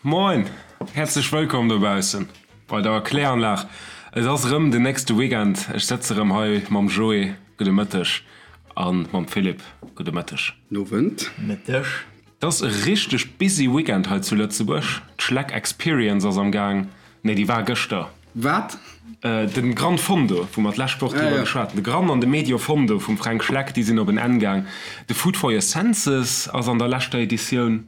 Moin! Häerzlech wëllkomm dobaussen bei der Kläranlag. Et ass erëm den nächste Weekend. Ech sëtze erëm hei mam Joé, gudde Mëtteg, a mam Philippe, gudde Mëtteg. Nowend. Mëtteg. Et ass e richteg busy Weekend hei zu Lëtzebuerg. D'Schleck Experience ass am Gaang. Nee, déi war gëschter. Wat? Den Gran Fondo, wou mer d'lescht Woch driwwer geschwat hunn. De Gran an de Medio Fondo vum Fränk Schleck, déi sinn op en Enn gaang. De Food for your Senses ass an der leschter Editioun.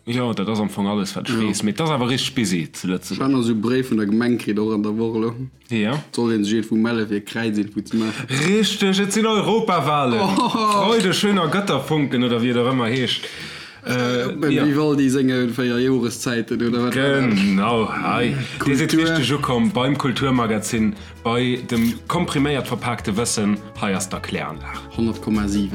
Jo, dat ass am Fong alles, wat ech weess. Mee et ass awer richteg busy zu Lëtzebuerg. Ech hat nach esou e Bréif vun der Gemeng kritt, och an der Woch elo. Jo. Et soll ee sech iergendwou melle fir e Kräizinfo ze maachen. Richteg, et sinn Europawahlen! Freude schöner Götterfunken, oder wéi et och ëmmer heescht. Beim Vivaldi senge 4 Joreszäiten, oder wat war dat? Genau, hei. Dir sidd richteg ukomm beim Kulturmagazin, bei dem kompriméiert verpaakte Wëssen. Hei ass d'Erkläranlag. 100,7.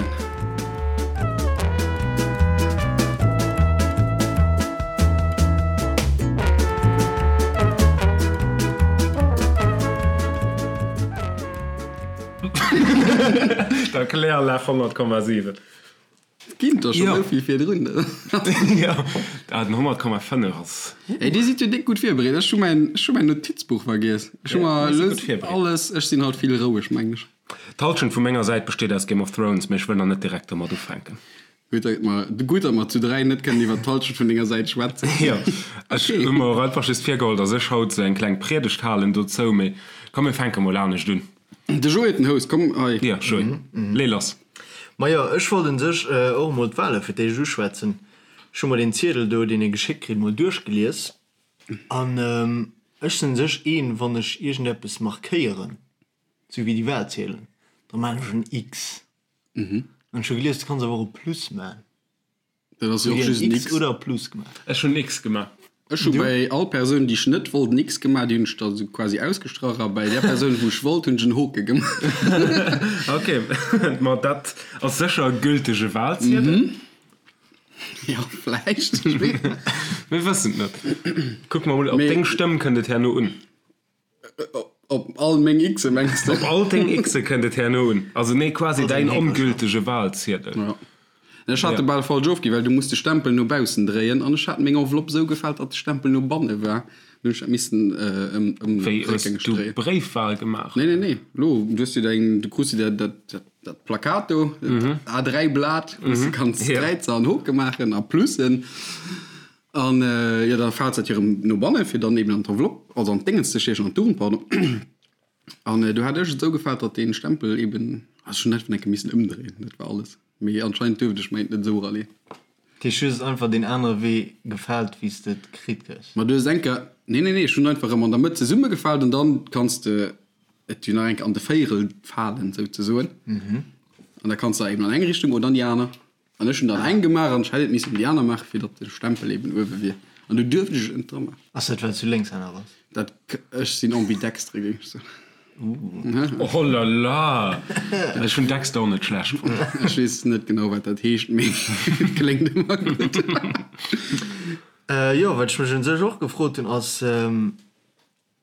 D'Erkläranlag 100,7. Ginn der schon esou vill virdrun. Jo, ah den 100,5 ass. Ey, dir sidd jo déck gutt virbereet. Ech hu mäin, ech hu mäin Notizbuch vergiess. Ech hu mer elo alles, ech sinn halt vill roueg, meng ech. D'Halschent vu menger Säit besteet aus Game of Thrones, mee ech wëll nach net direkt domat ufänken. Gutt, datt mer, gutt, datt mer zu 3 net kënnen iwwer d'Halschent vun denger Säit schwätzen. Jo, ech hu mer och einfach just virgeholl, datt ech haut esou eng kleng Priedegt halen dozou, mee komm mir fänke mol anescht un. De Joé huet den Host, komm hei. Jo, Joé, lee lass. Majo, ech wollt un sech och emol d'Wale fir d'éischt uschwätzen. Ech hu mer deen Ziedel do, deen ee geschéckt kritt, mol duerchgelies. An ech sinn un sech een, wann ech iergendeppes markéieren, sou wéi déi Walziedelen, da maan ech en X. An ech hu gelies, du kanns awer och e Plus maan. Dat ass jo och just en X. Oder e Plus gemaach. Ech hunn en X gemaach. Ech hu bäi all Persoun, déi ech net wollt, en X gemaach, déi hunn ech da sou quasi ausgestrach a bäi där Persoun, wou ech wollt, hunn ech en Hoke gemaach. Ok, ma dat ass sécher e gültege Walziedel. Jo, vläicht, ech weess net. Mir wëssen et net. Kucke mer mol, op deng Stëmm kënnt et herno un. Op all meng X'e mengs de? Op all deng X'e kënnt et herno un. Also nee, quasi däin ongültege Walziedel. Ja. Ech hat e bal falsch ofginn, well du muss de Stempel no baussen dréien an ech hat meng Enveloppe sou gefaalt, datt de Stempel no banne war. Dann hunn ech dat missen ëm ëm Wéi, hues réckgängeg du dréien. Bréifwal gemaach? Nee, nee, nee. Lo, du hues jo däin, du krus jo dat, dat, dat, dat Plakat do, dat A3-Blat, wou s de kanns Kräizer an Hoke maachen a Plussen. An jo, da faalt dat jo erëm no bannen, fir dann eben an d'Enveloppe, also an d'Déngens ze stiechen, an d'Urn, pardon. An do hat ech et esou gefaalt, datt dee Stempel eben, also ech hunn einfach eng Kéier missen ëmdréien, dat war alles. Mee anscheinend duerft ech mäint net esou eraleeën. Dat heescht, du hues et einfach deen anere Wee gefaalt, wéi s de et kritt hues? Ma du hues eng Kéier, nee, nee, nee, ech hunn einfach erëm an der Mëtt zesummegefaalt an dann kanns de et jo nach eng Kéier an de Véierel falen, souzesoen. An da kanns de eben an eng Richtung oder an déi aner. An ech hunn dann eng gemaach an ech hätt et missen déi aner maachen, fir datt de Stempel eben uewe wier. An du duerft ech et net dra maachen. Ass dat well s du Lénkshänner bass? Dat, ech sinn ambidextre, géing ech soen. Oh la la! Ech hunn Dexter och net schlecht fonnt. Ech weess net genau, wat dat heescht, mee et kléngt ëmmer gutt. Jo, wat ech mech un sech och gefrot hunn, ass,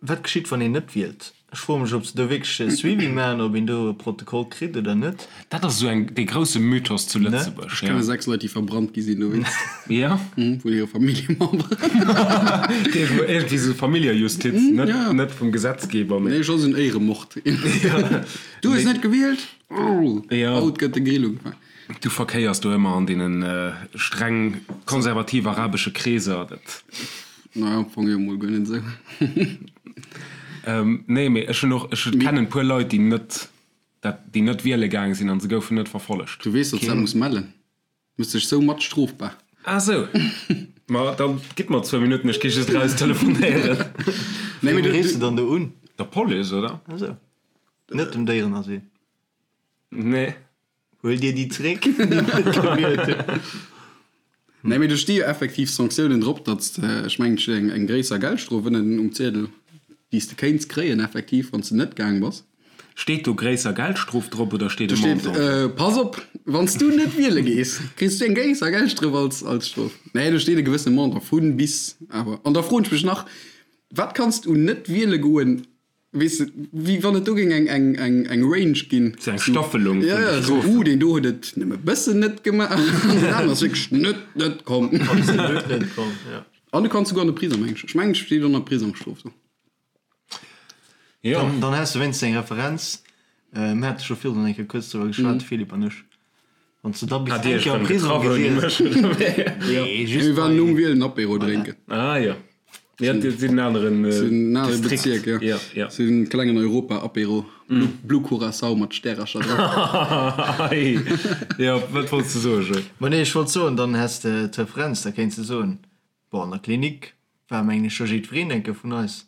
Wat geschitt, wann een net wielt? Ech froe mech, ob se do wierklech e Suivi maachen, ob een do e Protokoll kritt oder net. Dat ass esou eng, dee grousse Mythos zu Lëtzebuerg. Ech kenne 6 Leit, déi verbrannt gi sinn dowéinst. Ja? Vun hire Familljememberen. Iergendwéi esou Familljejustiz, net, net vum Gesetzgeber, mee. Nee, soss en Éieremord. Du hues net gewielt? Haut gëtt de Grill ugefaangen. Du verkéiers do ëmmer an deene streng konservativ arabesche Kreeser, dat. Naja, am Fong jo mol guer net esou. Nee, mee ech hunn och, ech kennen e puer Leit, déi net dat, déi net wiele gaang sinn an se goufen net verfollegt. Du weess, datt s dat muss mellen. Du méchs dech sou mat strofbar. Ah sou. Ma da gitt mer zwou Minutten, ech gi just eraus telefonéieren. Nee, mee du riffs de dann do un? Der Police, oder? Ah sou. Net dem Déierenasyl? Nee. Huel dir déi zréck, déi net gewielt hunn. Nee, mee do sti jo effektiv Sanktiounen drop, datt s de, ech mengen, et steet eng, eng gréisser Geldstrof ënnen um Ziedel, déi s de kéints kréien effektiv, wann s de net gaang bass. Steet do gréisser Geldstrof drop oder steet e Do steet, Montant? Pass op, wann s du net wiele gees, kriss du eng gréisser Geldstrof als, als Strof. Nee, do steet e gewëssene Montant, vu bis awer. An da froen ech mech nach, Wat kanns du net wiele goen? Weess de, wéi wann et do géing eng, eng, eng, eng Range ginn. Sou eng Staffelung vun de Strofen. Ja, ja, deen do huet et nëmme bëssen net gemaach, an deen aneren ass wierklech net, net komm. Absolut net komm, ja. An du kanns souguer an de Prisong, mengen ech. Ech mengen, et steet ënner Prisongsstrof do. Jo. Dann, dann häss de wéinstens eng Referenz. Mir hate scho virdrun eng Kéier kuerz driwwer geschwat, de Philippe an ech. Wann s de da bis Hat Dir eng iech Kéier am rëm Prisong getraff ouni gewiescht. mech, oder wéi? Nee, just Mir waren bei. nom Wielen Apéro drénken. Ah jo. Ja, dat sinn en aneren Sinn en anere Distrikt. Bezierk, jo. Ja, ja. Sinn klengen Europa-Apéro. Blue, Blue Curaçao mat Stärercher dran. Ei. Jo, wat wollts de soen, Joé? Ma nee, ech wollt soen, dann häss de d'Referenz, da kéints de soen, bon, an der Klinik war, mengen ech, scho jiddwereen eng Kéier vun eis.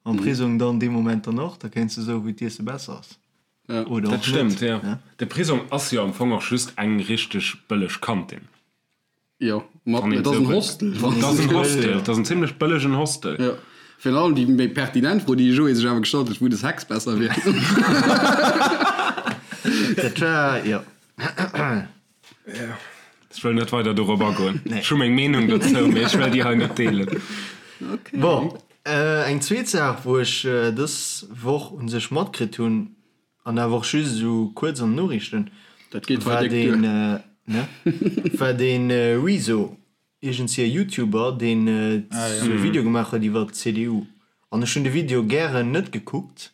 Am Prisong dann dee Moment dann och, da kéints de soen, wou d'Iesse besser ass. Ja. Oder Dat och stëmmt, net, jo. ne? De Prisong ass jo am Fong och just eng richteg bëlleg Kantin. Jo, mat, Wann een et ass esou en wëllt. Hostel. Et ass en Hostel, et ass en zimlech bëllegen Hostel. Jo. Virun allem déi méi pertinent Fro, déi de Joé sech awer gestallt huet, wou de Sex besser wier. Dat war, jo. Ech wëll net weider dorop agoen. Ech hu meng Meenung dozou, mee ech wëll déi hei net deelen. Bon, eng zweet Saach, wou ech dës Woch u sech matkritt hunn, an awer och just esou kuerz an den Noriichten, Dat geet hei war déck duer. deen, ne, war dee Rezo, iergendsi e Youtuber, deen esou e Video gemaach huet iwwer d'CDU. An ech hunn de Video gären net gekuckt,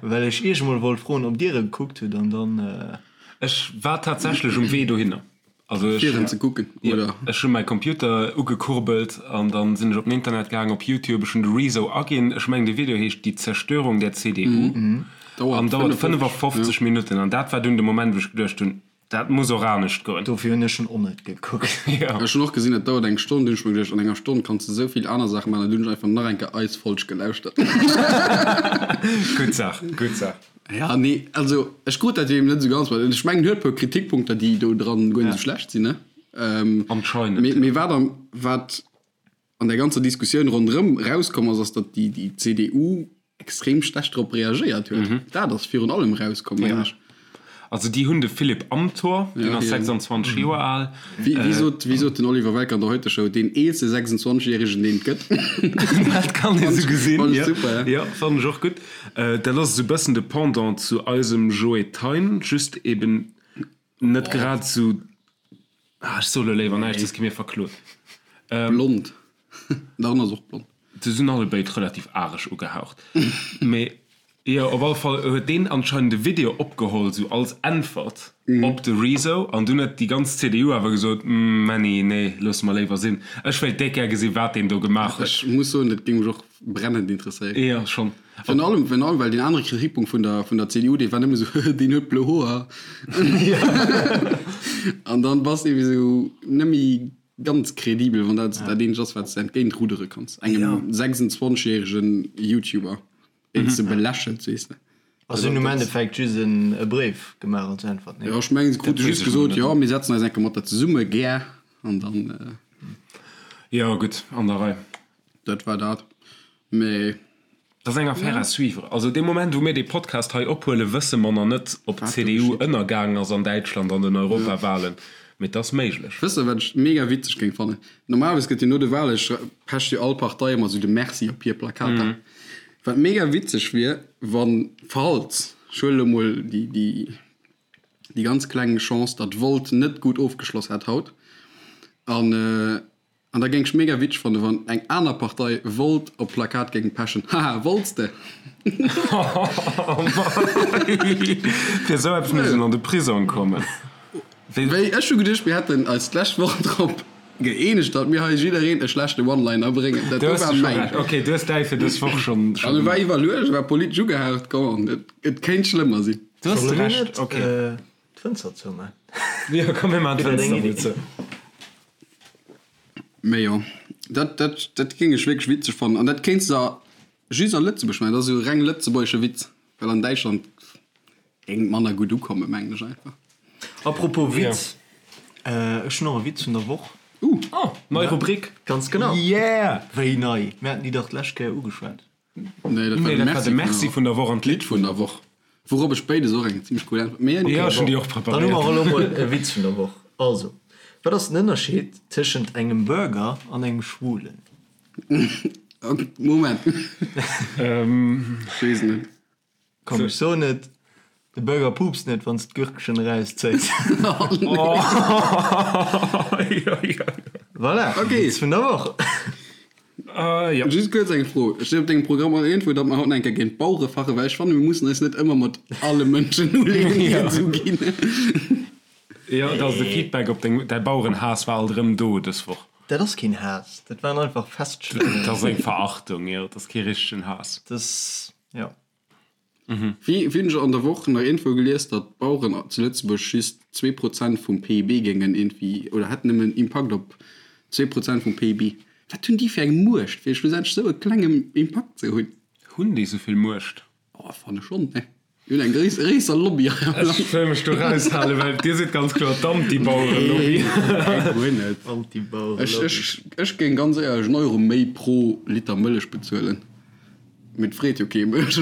well ech iech emol wollt froen, ob dir e gekuckt hutt, an dann. Ech war tatsächlech um Wee dohinner. Also ech, Fir en ze kucken, oder? Ech hu mäi Computer ugekurbelt an dann sinn ech op den Internet gaang, op Youtube. Ech hunn de Rezo aginn. Ech mengen de Video heescht Die Zerstörung der CDU an dauert 55 Minutten. An dat war dunn de Moment, wou ech geduecht hunn, dat muss och anescht goen. Dofir hunn ech en och net gekuckt. Ech hunn och gesinn, et dauert eng Stonn. Dunn hunn ech mer geduecht, an enger Stonn kanns de esou vill aner Saache maachen. An dunn hunn ech einfach nach eng Kéier eis Folg gelauschtert. Gutt Saach, gutt Saach. Ja, nee, also ech krut dat jo eben net esou ganz mat. Ech mengen, en huet e puer Kritikpunkter, déi do dran guer net esou schlecht sinn, ne? Anscheinend. Mee, mee wat am, wat an der ganzer Diskussioun ronderëm rauskomm ass, ass, datt déi, déi CDU extrem schlecht drop reagéiert huet. Dat ass virun allem rauskomm, mengen ech. Also déi hunn de Philipp Amthor, deen ass 26 Joer al. Wéi, wéi sot, wéi sot den Oliver Welke an der Heute-Show, deen eelste 26 Järegen, deen et gëtt. Dat kann ee sou gesinn, Fand ech jo. super, ja. Jo, fannen ech och gutt. Dat ass esou e bëssen de Pendant zu eisem Joe Thein, just eben net grad esou, ah, ech soe lo léiwer näischt, soss gi mir verklot. Blond. Dach, en ass och blond. Se sinn allebéid relativ areg ugehaucht. Mee jo, op alle Fall huet deen anscheinend e Video opgeholl, sou als Äntwert op de Rezo. An dunn huet déi ganz CDU awer gesot, Männi, nee, loosse mer léiwer sinn. Ech wéilt déck gär gesinn, wat deen do gemaach huet. Ech muss soen, dat géing mech och brennend interesséieren. Jo, schonn. Virun allem, virun allem, well deen anere Kritikpunkt vun der, vun der CDU, dee war nëmme sou, deen huet blo Hoer. An dann bass de ewéi sou nëmme Ganz kredibel, wann dat dat eenzegt ass, wat s de entgéint ruddere kanns. Engem 26 järegen Youtuber, deen s de belächels, weess de. Also si hunn um Endeffekt just e Bréif gemaach als Äntwert, nee? Jo, ech mengen, se krute just gesot, jo, mir setzen eis eng Kéier mat der zesumme, gär, an dann. Jo, gutt, an der Rei. Dat war dat. Mee. Dat ass eng Affaire à suivre. Also dee Moment, wou mir dee Podcast hei ophuelen, wësse mer nach net, ob d'CDU ënnergaangen ass an Däitschland an den Europawahlen. Mee et ass méiglech. Wësst der, wat ech mega witzeg géing fannen? Normalerweis gëtt jo no de Wale pecht jo all Partei ëmmer esou de Merci op hir Plakater. Wat mega witzeg wier, wann, falls, ech huele lo mol déi, déi, déi ganz kleng Chance, datt Volt net gutt ofgeschloss hätt haut an, An da géing ech mega witzeg fannen, wann eng aner Partei Volt op Plakat géing pechen. Haha, wollts de? Fir esou eppes muss een an de Prisong kommen. Wéi, ech hu geduecht, mir hätten eis d'lescht Woch drop gëeenegt, datt mir hei jiddereen e schlechte One-Liner bréngen. Dat do war mäin. Ok, du hues däi fir dës Woch schonn. An e war iwwerluecht, e war politesch ugehaucht. Come on, et kéint schlëmmer sinn. Du hues Recht, ok. D'Fënster zouman. Jo, komm mir maachen d'Fënster mol zou. Mee jo, dat, dat, dat géing ech wierklech witzeg fannen. An dat kéints de just a Lëtzebuerg maachen. Dat ass esou e reng lëtzebuergesche Witz, well an Däitschland géing et manner gutt ukommen, mengen ech einfach. Apropos Witz, ech hunn och e Witz vun der Woch. Uh! Oh, nei Rubrik! Ganz genau. Yeah! Wéi nei? Mir haten déi dach d'lescht Kéier ugeschwat. Nee, dat war Nee, de dat war de Merci Merci vun der Woch an d'Lidd vun der Woch. Wourop ech béides och eng zimmlech cool Äntwert. Mee Jo, ech hunn déi och Dann hu mer preparéiert. elo mol e Witz vun der Woch. Also, wat ass den Ënnerscheed tëschent engem Burger an engem Schwulen? Moment. Ech weess net. Komm, ech soen et, De Burger puupst net, wann s d'Gürkchen erauszéis. Voilà, Witz vun der Woch. Just kuerz eng Fro, Steet op dengem Programm och iergendwou, datt mer haut nach eng Kéier géint d'Bauere fachen? Well ech fannen, mir mussen eis net ëmmer mat alle Mënschen uleeën, déi et esou ginn. Jo, et ass de Feedback op deng, däi Bauerenhaass war alt erëm do dës Woch. Dat ass keen Haass, dat waren einfach Feststellungen. Dat ass eng Verachtung, jo, dat ass kee richtegen Haass. Dat ass, jo. Wéi hunn ech an der Woch nach iergendwou gelies, datt d'Baueren zu Lëtzebuerg just 2% vum PIB géingen iergendwéi, oder hätten nëmmen Impakt op 2% vum PIB. Wat hunn déi fir eng Muecht, fir schlussendlech esou e klengen Impakt ze hunn? Hunn déi esou vill Muecht? Oh, fanne schonn, ne? Déi hunn eng gréisser Lobby hei am Land. Ech wëll mech do raushalen, well dir sidd ganz kloer d'Anti-Bauere-Lobby. Nee, guer net. Anti-Bauere-Lobby. Ech géing ganz éierlech en Euro méi pro Liter Mëllech bezuelen. Mee et freet jo kee mech.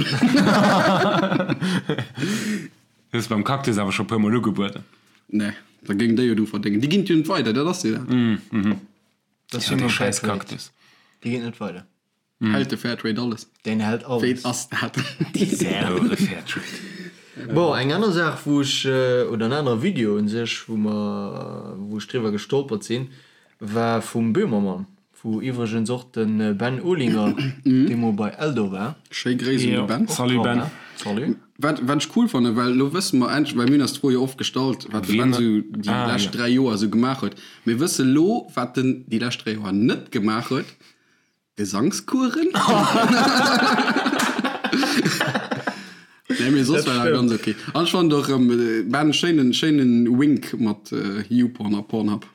Hues beim Cactus awer scho puer mol ugebueden. Nee, da géing déi jo dru verdéngen. Déi ginn et jo net weider, dat ass jo dat. Dat ass jo dee schäiss Cactus. Déi ginn et net weider. Hält de Fairtrade alles? Deen hält alles. Wéi ass dat? Saure Fairtrade. Bon, eng aner Saach wou ech, oder en anere Video un sech, wou mer, wou ech driwwer gestolpert sinn, war vum Böhmermann, wou iwwregens och de Ben Olinger deemol bei Eldo war. Schéi Gréiss un de Ben. Salut Ben. Salut. Wat, wat ech cool fannen, well elo wësse mer endlech, well mir hunn eis d'Fro jo oft gestallt, wat de Ben esou déi lescht 3 Joer esou gemaach huet. Mir wësse lo, wat en déi lescht 3 Joer net gemaach huet. Gesangskuren? Nee, mee soss war dat ganz ok. An ech fannen och erëm, war en schéinen, schéinen Wink mat YouPorn a Pornhub.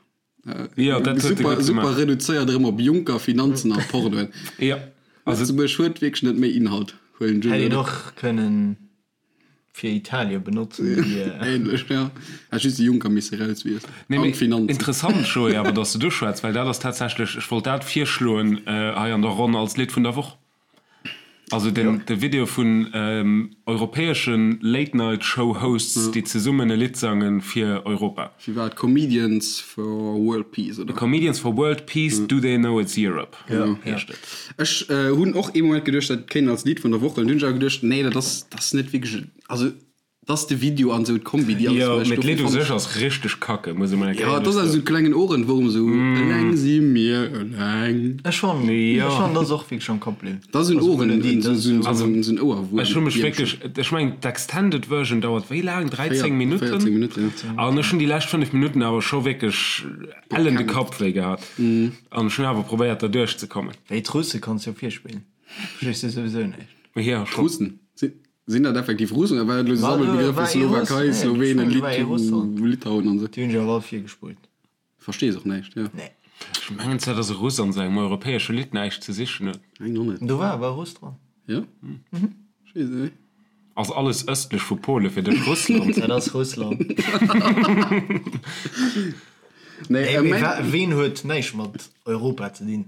Jo, dat huet e Super, gutt super gemaach. reduzéiert erëm op Juncker, Finanzen a Pornoen. Jo, also. Lëtzebuerg huet wierklech net méi Inhalt, huelen ech un, Hätt een oder? och kënnen Fir Italien benotzen déi. Ähnlech, ja. Hätt just de Juncker misse rauswiesselen. Nee, An mee d'Finanzen. interessant, Joé, awer dass de du schwätz, well dat ass tatsächlech, ech wollt dat virschloen hei an der Ronn als Lidd vun der Woch. Also den, de Video vun europäesche Late-Night-Show-Hosts, déi zesummen e Lidd sange fir Europa. Wéi war et? Comedians for World Peace, oder? Comedians for World Peace, Do They Know It's Europe? heescht et. Ech hunn och ee Moment geduecht, dat kéint als Lidd vun der Woch huelen. Dunn hunn ech awer geduecht, nee, dat ass, dat ass net wierklech, also dat ass de Video an esou d'Kombi, déi alles Jo, mécht. mee Dofir d'Lidd u fand sech ech. ass richteg kacke, muss ee mol eng Jo, Kéier et ass awer soen. esou klengen Ohrenwurm, esou eleng si mir eleng. Ech fannen, Jo. ech fannen, dat ass och wierklech am Kapp bliwwen. Dat ass en Also Ohren, Melodie, dat ass esou Also, en Ouerwuerm. Ech hu mech wierklech, ech mengen d'Extended Version dauert wéi laang? 13 Minutten? 14 Minutten, ja. An ech hunn déi lescht 5 Minutten awer scho wierklech ellen de Kapp wéi gehat. An ech hunn awer probéiert der duerch ze kommen. Wéi d'Russe kanns jo virspillen, verstees du souwisou näischt. Jo, scho. D'Russen? Sinn dat effektiv Russen oder war dat elo esou War do- Sammelbegrëff war fir ee Russ? Slowakei, Nee, Slowenen, ech mengen, war ee Russ Lit Litauen an esou? Déi hunn ech awer all virgespullt. Verstees och näischt, jo. Nee. Ech mengen zwar, dass e Russ an sou engem europäesche Lidd näischt ze sichen huet. Mengen och net. Do war awer e Russ dran. Jo? Ech weess et net. Ass alles ëstlech vu Pole fir dech Russland? Dat ass Russland. Nee, Nee, äh, mee mein, wa ween huet näischt mat Europa ze dinn?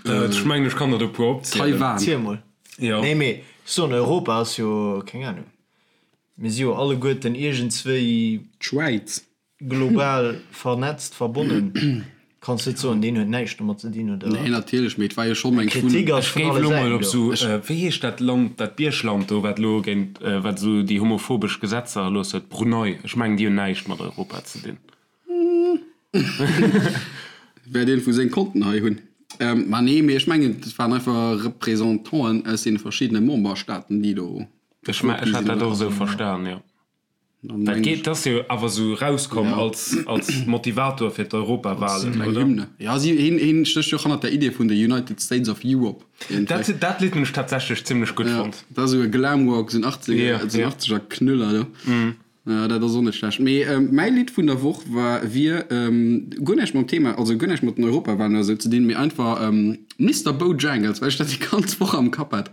Ech mengen, ech kann der der e puer opzielen. Taiwan. Ziel mol. Jo. Nee, mee ech soen, Europa ass jo, keng Ahnung, mir si jo alleguerten iergendswéi D'Schwäiz. global vernetzt, verbonnen. Kanns net soen, deen huet näischt domat ze dinn, oder? Nee, natierlech, mee et war jo schonn eng vun. Kritik ass Ech vun géif alle elo mol Säiten op do. sou, wéi heescht dat Land, dat Biergland do, wat elo géint, wat esou déi homophobesch Gesetzer erlooss huet, Brunei, ech mengen, déi hunn näischt mat Europa ze dinn. Wäert een vu seng Konten hei hunn. Ma nee, mee ech mengen, et waren einfach Représentanten aus deene verschiddene Memberstaaten, déi do. Ech hat dat och esou verstan, jo. Dat geet, dat ass jo awer esou erauskomm als, als Motivator fir d'Europawahlen, Eng oder? Hymne. Ja, si, hien, hien stécht jo och hannert der Idee vun de United States of Europe. Dat, dat Lidd hunn ech tatsächlech zimmlech gutt Ja, fonnt. dat ass esou e Glamrock, esou en 80er, Ja, esou en ja. 80er Knüller do. Ja, dat ass och net schlecht. Mee mäi Lidd vun der Woch war, wier guer näischt mam Thema, also guer näischt mat den Europawahlen oder esou ze dinn, mee einfach Mister Bojangles, well ech dat déi ganz Woch am Kapp hat.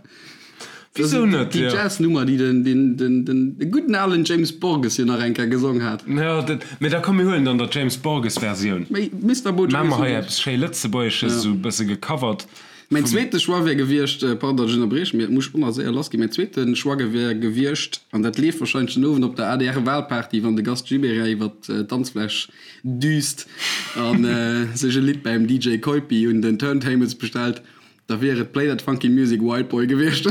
Wisou net, Déi jo. Jazz-Nummer, déi den, den, den, den, de gudden alen James Borges jo nach eng Kéier gesong hat. Jo, dat, mee da komm mir huelen dann der James Borges Versioun. Mee Mister Maache Bojangles mer hei huet. eppes schéi Lëtzebuergesches, esou e bësse gecovert Mäin vum. zweete Choix wär gewiescht, pardon, datt ech ënnerbrieche, mee et muss och nach séier lass ginn, mäin zweete Choix wär gewiescht, an dat leeft wahrscheinlech den Owend op der ADR-Wahlparty, wann de Gast Gibéryen iwwer d'Danzfläch düst a sech e Lidd beim DJ Keupi un den Turntables bestellt. Da wier et Play That Funky Music White Boy gewiescht.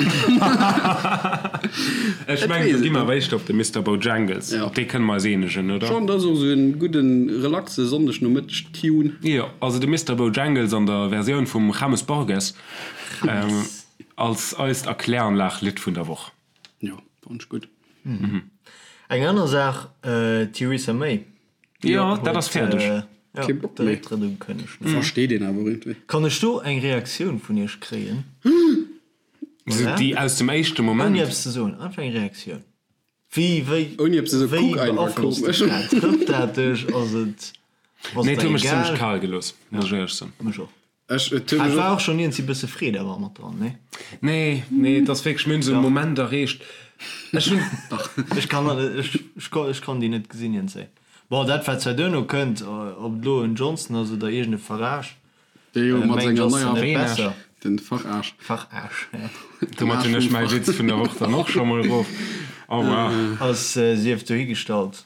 Ech mengen, do gi mer awer éischter op de Mister Bojangles. Op dee kënne mer eis eenegen, oder? Schon, dat ass och esou en gudden, relaxe Sonndegnomëtteg-Tune. Jo, also de Mister Bojangles an der Versioun vum James Borges als eist Erkläranlag-Lidd vun der Woch. Jo, fannen ech gutt. Eng aner Saach, Theresa May. Jo, dat ass fäerdeg. Kee Bock méi. Récktrëtt ukënnegt. Versteet een awer iergendwéi. Kann ech do eng Reaktioun vun iech kréien? Esou déi aus dem éischte Moment? Ouni eppes ze soen, einfach eng Reaktioun. Wéi, wéi, Ouni eppes ze soen, wéi kuck einfach beaflosst dech komesch. dat? Trëfft dat dech? Ass et, ass Nee, et et huet der mech zimlech egal? kal gelooss, muss ech éierlech soen. Mech och. Ech, et huet Et mech war och. och schonn iergendwéi bësse Freed awer mat dran, nee? Nee, nee, et ass wierklech, mir hunn esou e Moment erreecht, ech hunn. Dach. Ech kann, ech, ech kann déi net gesinn iergendzéi. Bon, dat wat zwar duerno kënnt, ob et elo en Johnson ass oder iergend e Farage, Dee jo mat mengt senger ass neier net besser. Den Farage. Farage, ja. Domat hunn ech mäi Witz vun der Woch dann och scho mol erof. Au revoir. Ass sief dohigestallt.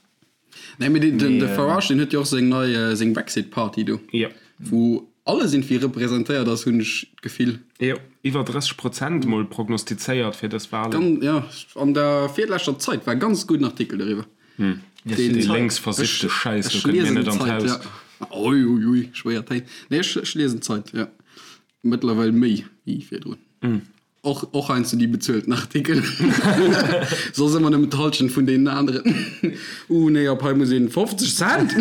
Nee, mee den de Farage, deen huet jo och seng nei, seng Brexit-Party do. Jo. Wou alles irgendwie representéiert ass, hunn ech d'Gefill. Jo, iwwer 30 Prozent mol prognostizéiert fir dës Walen. Gan, ja, an der virleschter Zait war e ganz gudden Artikel doriwwer. Dee lénks versiffte Schäiss, do kënnt mir net an d'Haus. Ui, ui, ui, schwéier Téin. Nee, ech, ech liesen d'Zeit, jo. Mëttlerweil méi wéi virdrun. Och, och heiansdo déi bezuelten Artikel. Soss ëmmer nëmmen d'Hallschent vun deenen aneren. Uh, nee, op hei muss een 50 Cent!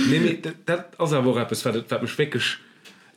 Nee, mee dat ass awer och eppes, wat, wat mech wierklech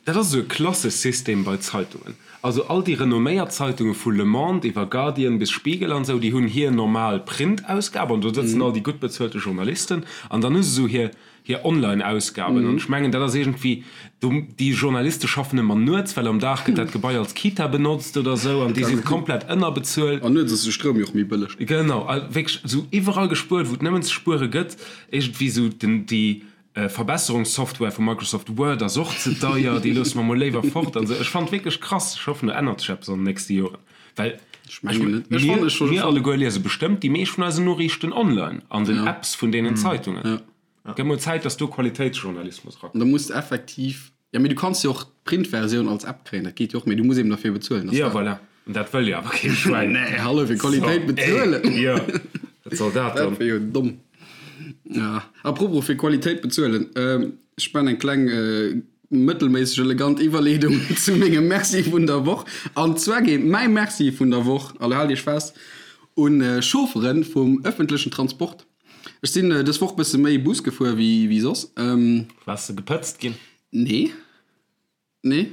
Dat ass esou e Klassesystem bei Zeitungen. Also all déi renomméiert Zeitunge vu Le Monde iwwer Guardian bis Spiegel an esou, déi hunn hir normal Printausgab an do sëtzen all déi gutt bezuelte Journalisten an dann hu se esou hir hir Online-Ausgaben an ech mengen dat ass iergendwéi do, déi Journaliste schaffen ëmmer nuets, well am Dag gëtt dat Gebai als Kita benotzt oder esou an déi si komplett ënnerbezuelt. An nuets ass de Stroum jo och méi bëlleg. Genau, a wierklech esou iwwerall gespuert, wou et nëmmen ze spuere gëtt, iergendwéi esou den déi Verbesserungssoftware vu Microsoft Word ass och ze deier, déi loosse mer mol léiwer fort an esou. Ech fannen et wierklech krass. Ech hoffen do ännert sech eppes an den nächste Joren, well Ech mengen net. Ech fannen ech mir, mir alleguer liese bestëmmt déi meescht vun eisen Noriichten online an den Apps vun deenen Zeitungen. Gëtt mol Zäit, dass do Qualitéitsjournalismus erakënnt. Da muss de effektiv, jo mee du kanns jo och d'Printversioun als App kréien, dat geet jo och, mee du muss eben derfir bezuelen. Jo voilà, an dat wëll jo awer kee Schwäin. Nee, hallo, fir Qualitéit bezuelen. Jo, wat soll dat dann? Dat wier jo domm. Ja, apropos fir Qualitéit bezuelen, ech man eng kleng mëttelméisseg elegant Iwwerleedung zu mengem Merci vun der Woch. An zwar geet mäi Merci vun der Woch, a lo haalt iech fest, un Chauffere vum ëffentlechen Transport. Ech sinn dës Woch bësse méi Bus gefuer wéi wéi soss. Waars de gepëtzt ginn? Nee. Nee.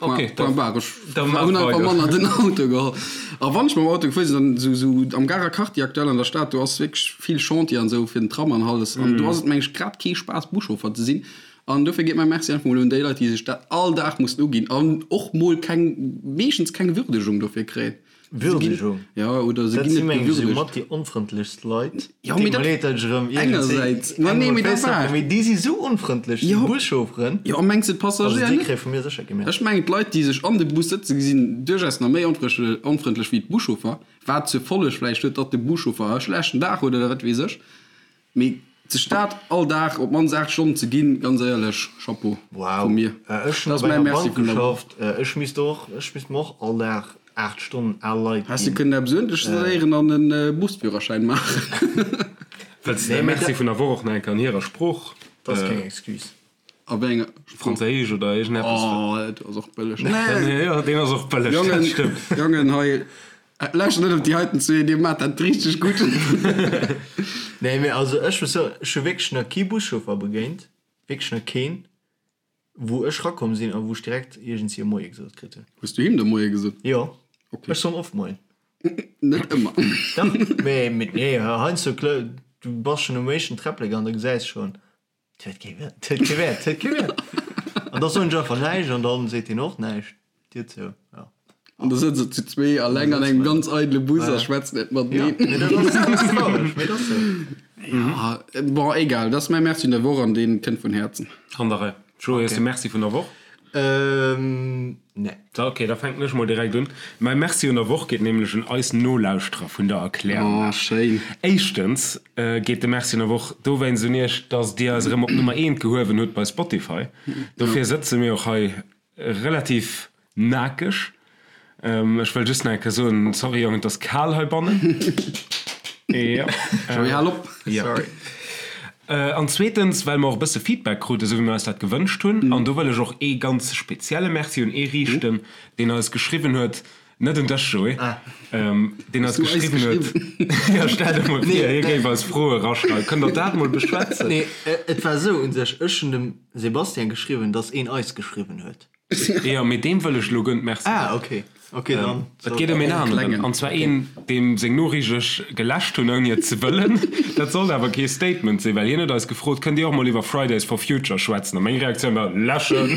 Ok, Point barre. Ech hunn einfach manner den Auto geholl. A wann ech mam Auto gefuer sinn, dann esou esou am Garer Quartier aktuell an der Stad, do ass wierklech vill Chantier an esou fir den Tram an alles. An do ass et meng ech grad kee Spaass Buschauffer ze sinn. An dofir geet mäi Merci einfach mol un déi Leit, déi sech dat all Dag mussen uginn an och mol keng, meeschtens keng Würdegung dofir kréien. Würdegung. Ja, oder se Dat ginn si net meng ech esou gewürdegt. mat déi onfrëndlechst Leit. Jo, Deet mee mer dat leed, dat ech erëm iergendsee engersäits, ma engem nee, op mee dat d'Féiss war. trëppelen, mee déi si sou onfrëndlech, déi Jo. Buschaufferen. Jo, a mengs de Also d'Passagéier déi net? kréie vu mir sécher kee Merci. Ech mengen d'Leit, déi sech an de Bus sëtzen, sinn duerchaus nach méi onfrëndlech wéi d'Buschauffer, wat zur Folleg vläicht huet, datt de Buschauffer e schlechten Dag huet oder wat weess ech. Mee sech dat all Dag op d'mannst 8 Stonnen ze ginn, ganz éierlech, Chapeau Wow, vu mir. ech hunn Dat ass op mäi enger Merci Bank vun der Woch. geschafft, ech misst och, ech misst mer och all Dag 8 Stonnen al Leit Häss de ginn. kënnen eppes uerdentlech léieren an e Busführerschäin maachen. Wëlls de däi Nee, mee Merci dat vun der Woch och nach eng Kéier an hirer Sprooch, ass keng Excuse. A wéi enger Sprooch? Franséisch oder iergendeppes? Oh, dat ass och bëlleg. Nee! Jo, deen ass och bëlleg, dat Jongen, stëmmt. Jongen, hei, lauschtert net op déi heiten zwee, dir maacht dat richteg gutt. Nee, mee also ech muss soen, ech hu wierklech nach kee Buschauffer begéint, wierklech nach keen, wou ech rakomm sinn a wou ech direkt iergendwéi e Moie gesot kritt hunn. Hues du him de Moie gesot? Jo, Okay. ech soen oft Moien. Net ëmmer. Dach, mee, mee nee, heiansdo, du bass schonn um éischten Träpplek an da gesäis schonn, Et huet kee Wäert, et huet kee Wäert, et huet kee Wäert. An da soen ech einfach näischt an dann seet hien och näischt. D'Dier zou, ja. An da sëtze se zu zwee alleng an engem ganz eidele Bus a schwätzen net mateneen. Ja, mee dat ass, dat ass traureg, mee dat ass sou. Ja, bon, egal, dat ass mäi Merci vun der Woch an dee kënnt vun Häerzen. An der Rei. Joé, hues de Merci vun der Woch? Ähm, nee. Da, ok, da fänken ech mol direkt un. Mäi Merci un der Woch geet nämlech un eis Nolauschterer vun der Erklärung. Oh, schéin. Éischtens geet de Merci un der Woch dowéinst un iech, dass dir eis erëm op Nummer eent gehuewen hutt bei Spotify. Dofir sëtze mir och hei. relativ Nakeg. Ech wëll just nach eng Kéier soen, sorry Jongen, et ass kal heibannen. Jo. Joey, hal op. Jo. Sorry. An zweetens, well mer och e bësse Feedback kruten, esou wéi mer eis dat gewënscht hunn. An do wëll ech och ee ganz spezielle Merci un ee riichten, deen eis geschriwwen huet, net un dech, Joé, deen eis geschriwwen huet, jo, stell der mol vir, hie géif eis Froe eraschreiwen. Kënnt der dat mol beschwätzen? Nee, et war esou un sech, ech hunn dem Sebastian geschriwwen, dass een eis geschriwwen huet. Jo, mee deem wëll ech elo guer net Merci soen. Ah, ok. Ok, dann. Et geet ëm een aneren, an zwar een, deem seng Noriicht ech geläscht hunn, ouni et ze wëllen. Dat sollt awer kee Statement sinn, well hien huet eis gefrot, Kënnt Dir och mol iwwer Fridays for Future schwätzen? A meng Reaktioun war, Läschen!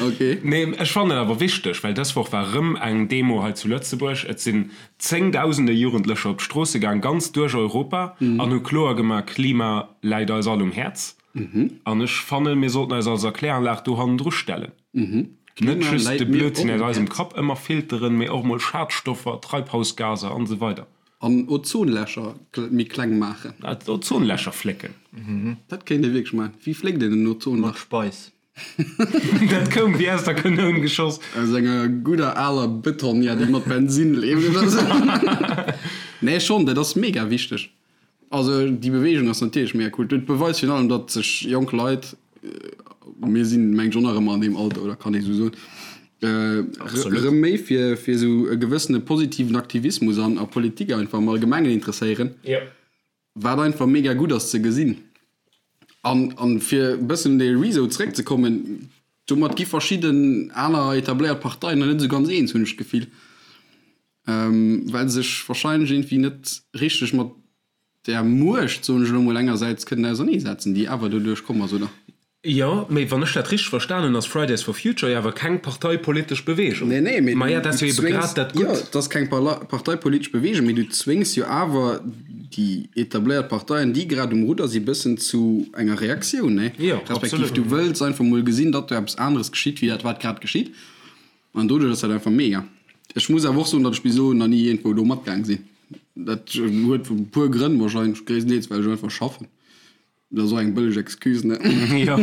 Ok. Nee, ech fannen et awer wichteg, well dës Woch war erëm eng Demo hei zu Lëtzebuerg. Et sinn zéngdausende Jugendlecher op d'Stroosse gaang, ganz duerch Europa, an hu kloer gemaach, Klima läit eis all um Häerz. An ech fannen, mir sollten eis als Erkläranlag do hannendru stellen. Net just de Blödsinn aus eisem Kapp ëmmer filteren, mee och mol Schadstoffer, Treibhausgaser an esou weider. An Ozonlächer méi kleng maachen. Ozonlächer flécken. Dat kéint ee wierklech maachen. Wéi fléckt een en Ozonlach? Mat Speis. Dat koum wéi aus der Kanoun geschoss. Aus enger gudder aler Betonnière, déi mat Bensinn leeft oder sou. Nee, schonn, dat ass mega wichteg. Also déi Beweegung ass natierlech mega cool. Dat beweist virun allem, datt sech jonk Leit, mir sinn mengen ech och nach ëmmer an deem Alter, oder kann ee sou soen, erëm méi fir fir esou e gewëssene positiven Aktivismus an a Politik einfach am Allgemengen interesséieren, wat einfach mega gutt ass ze gesinn. An an fir e bëssen un dee Rezo zeréckzekommen, domat gi verschidden aner etabléiert Parteien nach net esou ganz eens, hunn ech d'Gefill. Well se sech wahrscheinlech iergendwéi net richteg mat där Muecht, soen ech elo mol, engersäits kënnen auserneesetzen, déi awer doduerch komm ass, oder? Jo, mee wann ech dat richteg verstan hunn, ass Fridays for Future jo awer keng parteipolitesch Beweegung. Nee, nee, mee Maja, dat ass du jo ebe zwéngs, grad dat jo, Gutt. et ass keng parteipolitesch Beweegung, mee du zwéngs jo awer déi etabléiert Parteien, déi grad um Rudder si bëssen zu enger Reaktioun, nee? Jo, Respektiv absolut. du wëlls einfach mol gesinn, datt do eppes aneres geschitt, wéi dat wat grad geschitt. An doduerch ass dat einfach mega. Ech muss awer och soen, datt ech bis elo nach ni iergendwou do matgaang sinn. Dat huet e puer Grënn, wahrscheinlech gréisstendeels well ech einfach schaffen. Dat ass och eng bëlleg Excuse, ne? Jo.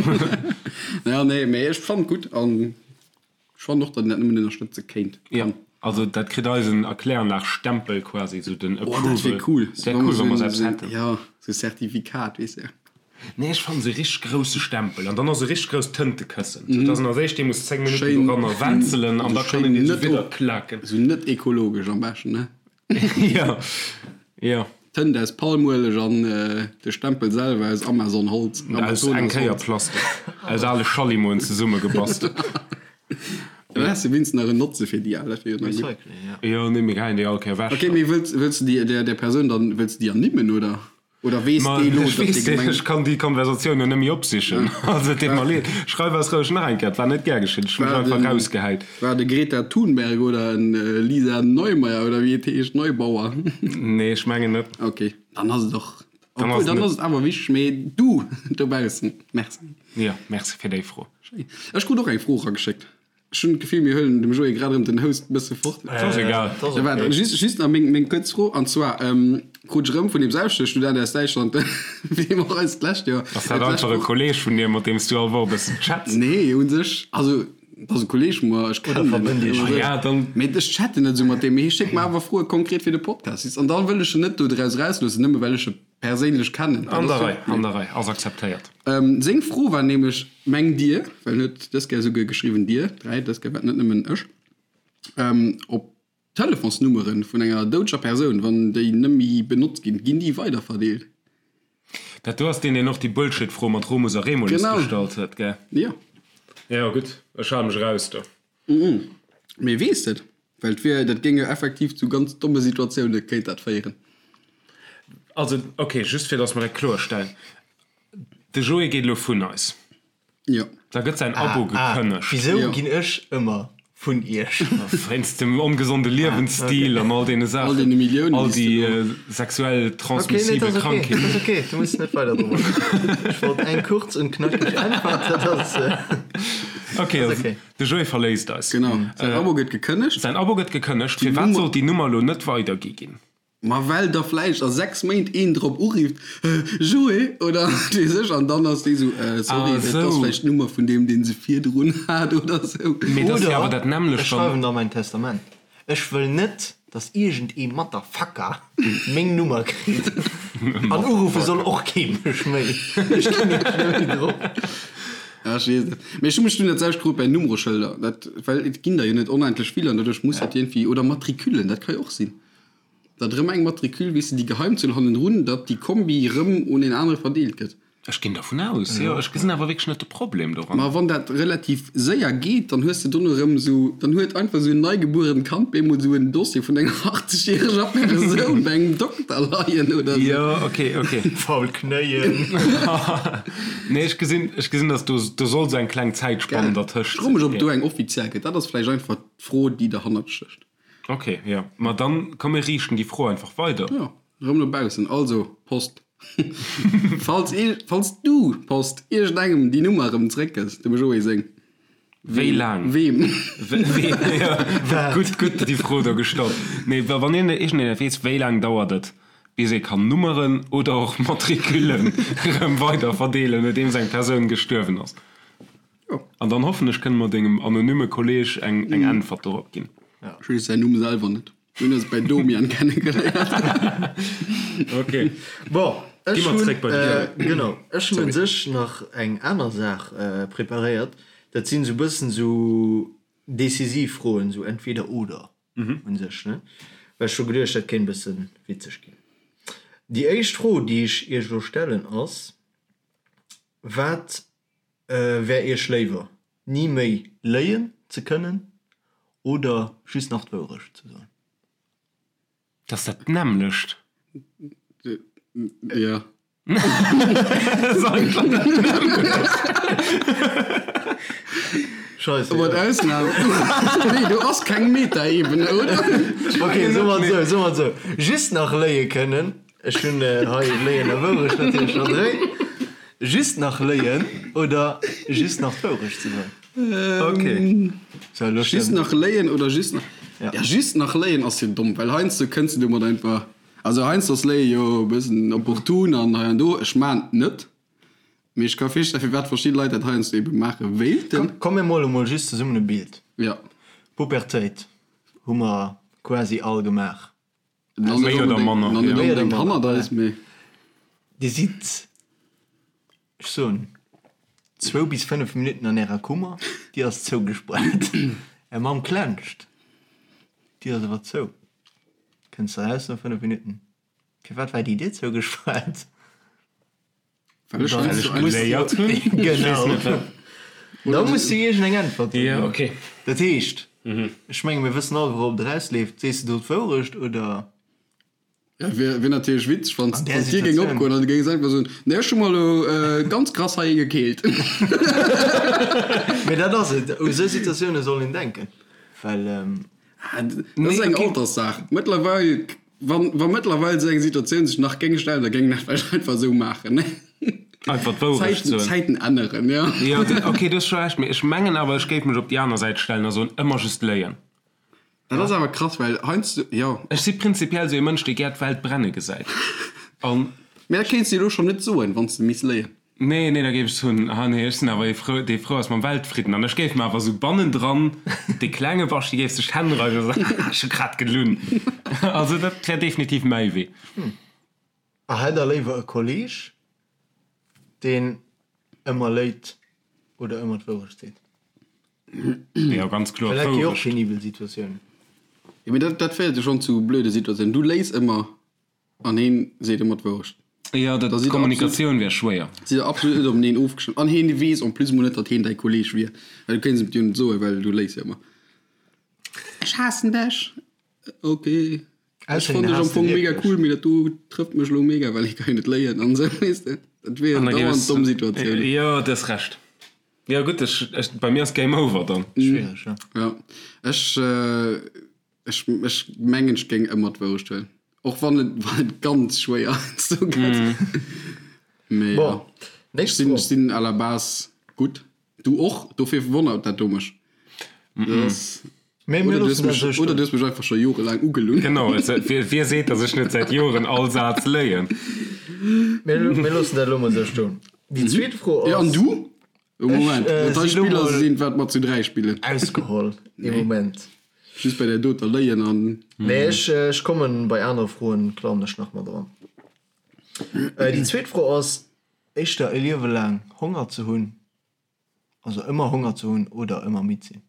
Ja, nee, mee ech fannen et gutt an ech fannen och, datt een dat nëmmen ënnerstëtze kéint, Ja, kann. also dat kritt eisen Erkläranlag-Stempel quasi, esou den Oh, dat wier Approval. cool. Wär cool, wa mer esou eppes hätten. Jo, esou e Zertifikat, weess de. Nee, ech fannen se richteg grousse Stempel an dann och se richteg grousst Tëntekëssen, sou dass en als éischt dee muss 10 Minutten doranner wenzelen an da kann een dee sou widder klaken. Sou net ekologesch am beschten, ne? Jo, jo. Tënt aus Palmueleg an de Stempel selwer aus Amazonholz. Aus eng Kéier Plastik, aus ale Schallimoen zesummegebastelt. Dann häss de wéinstens nach en Notze fir déi al, dat wier jo nach gutt. Recycling, ja. Jo, nee, mir geheien déi all Kéier ewech. Ok, mee wëlls wëlls de déi där Persoun dann, wëlls de déi ernimmen, oder? Oder weess Ma dee lo, ech datt weess dee deen, Gemeng. ech kann déi Konversatioun jo net méi opsichen. Also et deet mer leed. Schreif eis roueg nach eng Kéier, et war net gär geschitt, ech hu mech War einfach den, rausgehäit. war de Greta Thunberg oder en Lisa Neumeier oder wéi et heescht, Neubauer? Nee, ech mengen net. Ok, dann ass et och, Dann ass obwuel et dann net. ass et awer wichteg. Mee du dobaussen, merci. Jo, merci fir déi Fro. Schéin. Ech krut och eng Fro erageschéckt. Ech hunn d'Gefill, mir huelen dem Joé grad erëm den Host e bësse fort. Et ass egal. Et ass Ja, waart, okay. just, just nach meng, meng kuerz Fro, an zwar krut ech erëm vun deem selwechte Student aus Däitschland, wéi mer eis d'lescht Joer, Ass dat d'lescht einfach e Woch. Kolleeg vun dir, mat deem s du all Woch e bëssen chats? Nee, u sech, also, et ass e Kolleeg vu mer, ech Oder kennen en verbënnt net, Iech. Ah ja, dann. Mee ech chatten net esou mat deem, mee hie schéckt mer awer Froe konkret fir de Podcast. An da wëll ech en net do draus erausloossen, nëmme well ech e perséinlech kennen. An der Rei, an der Rei, ass akzeptéiert. Seng Fro war nämlech, Mengt Dir, well en huet dës Kéier esouguer geschriwwen Dir 3, dës Kéier war et net nëmmen ech, ob d'Telefonsnummere vun enger doudeger Persoun, wann déi net méi benotzt ginn, ginn déi weiderverdeelt? Dat do ass deen, deen och déi Bullshit-Fro mat Romus a Remulus gestallt huet, gell? Jo. Jo, gutt, ech hale mech eraus do. Mee weess et? Well et wier, dat géing jo effektiv zu ganz domme Situatioune kéint dat féieren. Also, ok, just fir datt mer dat kloerstellen, De Joé geet elo vun eis. Jo. Da gëtt säin Abo gekënnegt. Wisou Jo. ginn ech ëmmer vun iech? Wéinst dem ongesonde Liewensstil an all deene Saachen. All deene Milliounen, All déi s déi de do. sexuell Okay, nee, transmissibel dat ass okay. Krankheeten. Dat ass okay, du muss net weider drop agoen. Ech wollt eng kurz und knackig Äntwert, dat ass. Okay, Ass also okay. de Joé verléisst eis. Genau. Säin Abo gëtt gekënnegt. Säin Abo gëtt gekënnegt. Firwat sollt déi Nummer elo net weidergi ginn? Ma well da vläicht a 6 Méint een drop urifft, Joé oder wat weess ech, an dann ass dee sou, sorry, dat ass vläicht d'Nummer vun deem, dee se virdrun hat oder sou. Mee dat ass jo awer dat nämmlecht, Ech schreiwen da mäin Testament. Ech wëll net, dass iergend ee Motherfucker meng Nummer kritt. An uruffe soll och kee mech méi. Ech ginn iech net méi drop. Ja, ech weess net. Mee ech hu mech dunn dat selwecht gefrot bei Nummereschëlder. Dat, well et ginn der jo net onendlech vill an doduerch muss dat iergendwéi, oder Matricullen, dat ka jo och sinn. Datt erëm eng Matricule, weess de, déi Geheimzuel hannendrun, datt déi Kombi erëm un een anere verdeelt gëtt. Ech ginn dervun aus, jo. Ech gesinn awer wierklech net de Problem doran. Ma wann dat relativ séier geet, dann hues de dono erëm esou, dann huet einfach esou en neigebuerent Kand bemol esou en Dossier vun enger 80 järeger Persoun bei engem Dokter leien oder esou. Jo, ok, ok. Faul Knéien. Nee, ech gesinn, ech gesinn, datt do, do soll esou eng kleng Zäitspann dertëscht Ech froe mech, ob do eng offiziell gëtt. Dat ass vläicht einfach d'Fro, déi derhannert stécht. Ok, jo. Ma dann, komm mir riichten déi Fro einfach weider. Jo, erëm no baussen. Also, Post, falls ee, falls du, Post, iergendengem déi Nummer erëm zréckgëss, dem Joé seng. Wéi laang? Weem? Weem, jo. Gutt, gutt déi Fro do gestallt. Nee, wa wann een, iergendeen et weess, wéi laang dauert et, bis ee kann Nummeren oder och Matricullen erëm weider verdeelen, nodeems eng Persoun gestuerwen ass? Jo. An dann hoffen ech, kënne mer dengem anonyme Kolleg eng eng Äntwert dorop ginn. Ech weess säin Numm selwer net. Mir hunn eis bei Domian kennegeléiert. Ok. Bon, Gi ech mer hunn, zréck bei de Pierre. genau, ech hunn un sech nach eng aner Saach preparéiert. Dat sinn esou e bëssen esou decisiv Froen, esou entweder oder un sech, ne? Well ech hu geduecht, dat kéint e bësse witzeg ginn. Déi éischt Fro, déi ech iech elo stellen, ass, Wat Wär iech léiwer, ni méi léien ze kënnen oder just nach d'Wourecht ze soen? Dat ass dat nämmlecht. Jo. Scheisse. Mat Ausnam. Nee, do ass keng Metaebene, oder? Ok, soe mer et esou, soe mer et esou, just nach léie kënnen. Ech hunn hei Léien a Wourecht natierlech scho dréi. Just nach léien oder just nach d'Wourecht ze soen? Ok. So, elo Just stëmmt. nach léien oder just nach. Ja. Ja, just nach léien ass jo domm, well heiansdo kënns de domat einfach. Also heiansdo ass Léie jo e bëssen opportun an hei an do. Ech maan et net, mee ech ka virstellen, firwat verschidde Leit dat heiansdo ebe maache wéilten. Komm, mir mole mol just zesummen e Bild. Ja. Pubertéit hu mer quasi all gemaach. Méi oder manner, Nach net ja. onbedéngt hannert eis, mee. Dir sidd, ech soen, zwou bis fënnef Minutten an ärer Kummer, déi ass zougespaart. Är Mamm klenscht, d'Dier ass awer zou. Kënns eraus no fënnef Minutten, Firwat war déi Dier zougespaart? Well ech Well ech geléiert hunn. Genau. Da muss du iergend eng Äntwert ginn. Ja, okay. Dat heescht, ech menge mir wëssen all, wourop et erausleeft. Sees de do d'Wourecht oder? Ja, wier, wier natierlech witzeg, wann An där d'Dier géing Situatioun. opgoen an du géings einfach soen, Nee, ech hu mer elo ganz krass hei ee gekeelt. Mee dat ass et, u sou Situatioune soll een denken, well. Dat ass eng Alterssaach. Mëttlerweil, wann, wa mëttlerweil esou eng Situatioun sech nach géing stellen, da géing een dat vläicht einfach esou maachen, ne? Einfach d'Wourecht Zäiten, soen. Zäiten änneren, jo. Jo, okay, du hues scho Recht, mee ech mengen awer, ech géif mech op déi aner Säit stellen a soen, ëmmer just léien. Dat ass awer krass, well heiansdo, jo. Ech si prinzipiell esou ee Mënsch, dee gär d'Welt brenne gesäit. An. Mee dat kéints de elo schonn net soen, wann s de misst léien. Nee, nee, da géif ech soen, ah nee, ech sinn awer ee frou, dee frou ass mam Weltfridden. An ech géif mer awer esou bannendran, dee klenge Baschi géif sech d'Hänn reiwen a soen, haha, ech hu grad gelunn. Also dat wär definitiv mäi Wee. A hätt der léiwer e Kolleg, deen ëmmer léit oder ëmmer d'Wourecht seet? Jo, ganz kloer Well dat gi och d'Wourecht. penibel Situatiounen. Jo, mee dat, dat féiert jo schonn zu blöde Situatiounen. Du léis ëmmer An heen seet ëmmer d'Wourecht. Jo, dat d'Kommunikatioun wär schwéier. Sidd der absolut net openeen ofgestëmmt. An heen weess en plus mol net, datt heen däi Kolleg wier. Well du kéints em et jo net soen, well du léis jo ëmmer. Ech haassen dech! Ok. Ech fonnt dech am Fong mega cool, mee dat do trëfft mech elo mega, well hie ka jo net léien an esou, weess de. Dat wier dauernd domm Situatiounen. Jo, du hues Recht. Jo, gutt, ech, ech, bei mir ass Game over dann. Schwiereg, jo. Jo, ech. Ech ech mengen ech géing ëmmer d'Wourecht huelen. Och wann et wann et ganz schwéier heiansdo gëtt. Mee Bon, ja. Ech nächst sinn Fro. ech sinn à la base gutt. Du och, dofir wonnert dat do mech. Dat ass. Mee mir Oder du hues loossen dat mech, esou oder stoen. du hues mech einfach scho jorelaang ugelunn. Genau, et, wie, wie seet, datt ech net säit Joren all Saz léien? Mir, mir loossen dat elo mol esou stoen. Déi zweet Fro Ja, an ass. du? Oh, Moment, Ech, äh, dat hei si lo Spiller mol sinn, wat mer zu 3 spillen. Ausgeholl, ee Moment. Just bei där doter léien an. Nee, ech, ech kommen bei anere Froen, klammen ech nach mat eran. Äh, déi zweet Fro ass, éischter e Liewe laang Honger ze hunn, also ëmmer Honger ze hunn oder ëmmer midd sinn?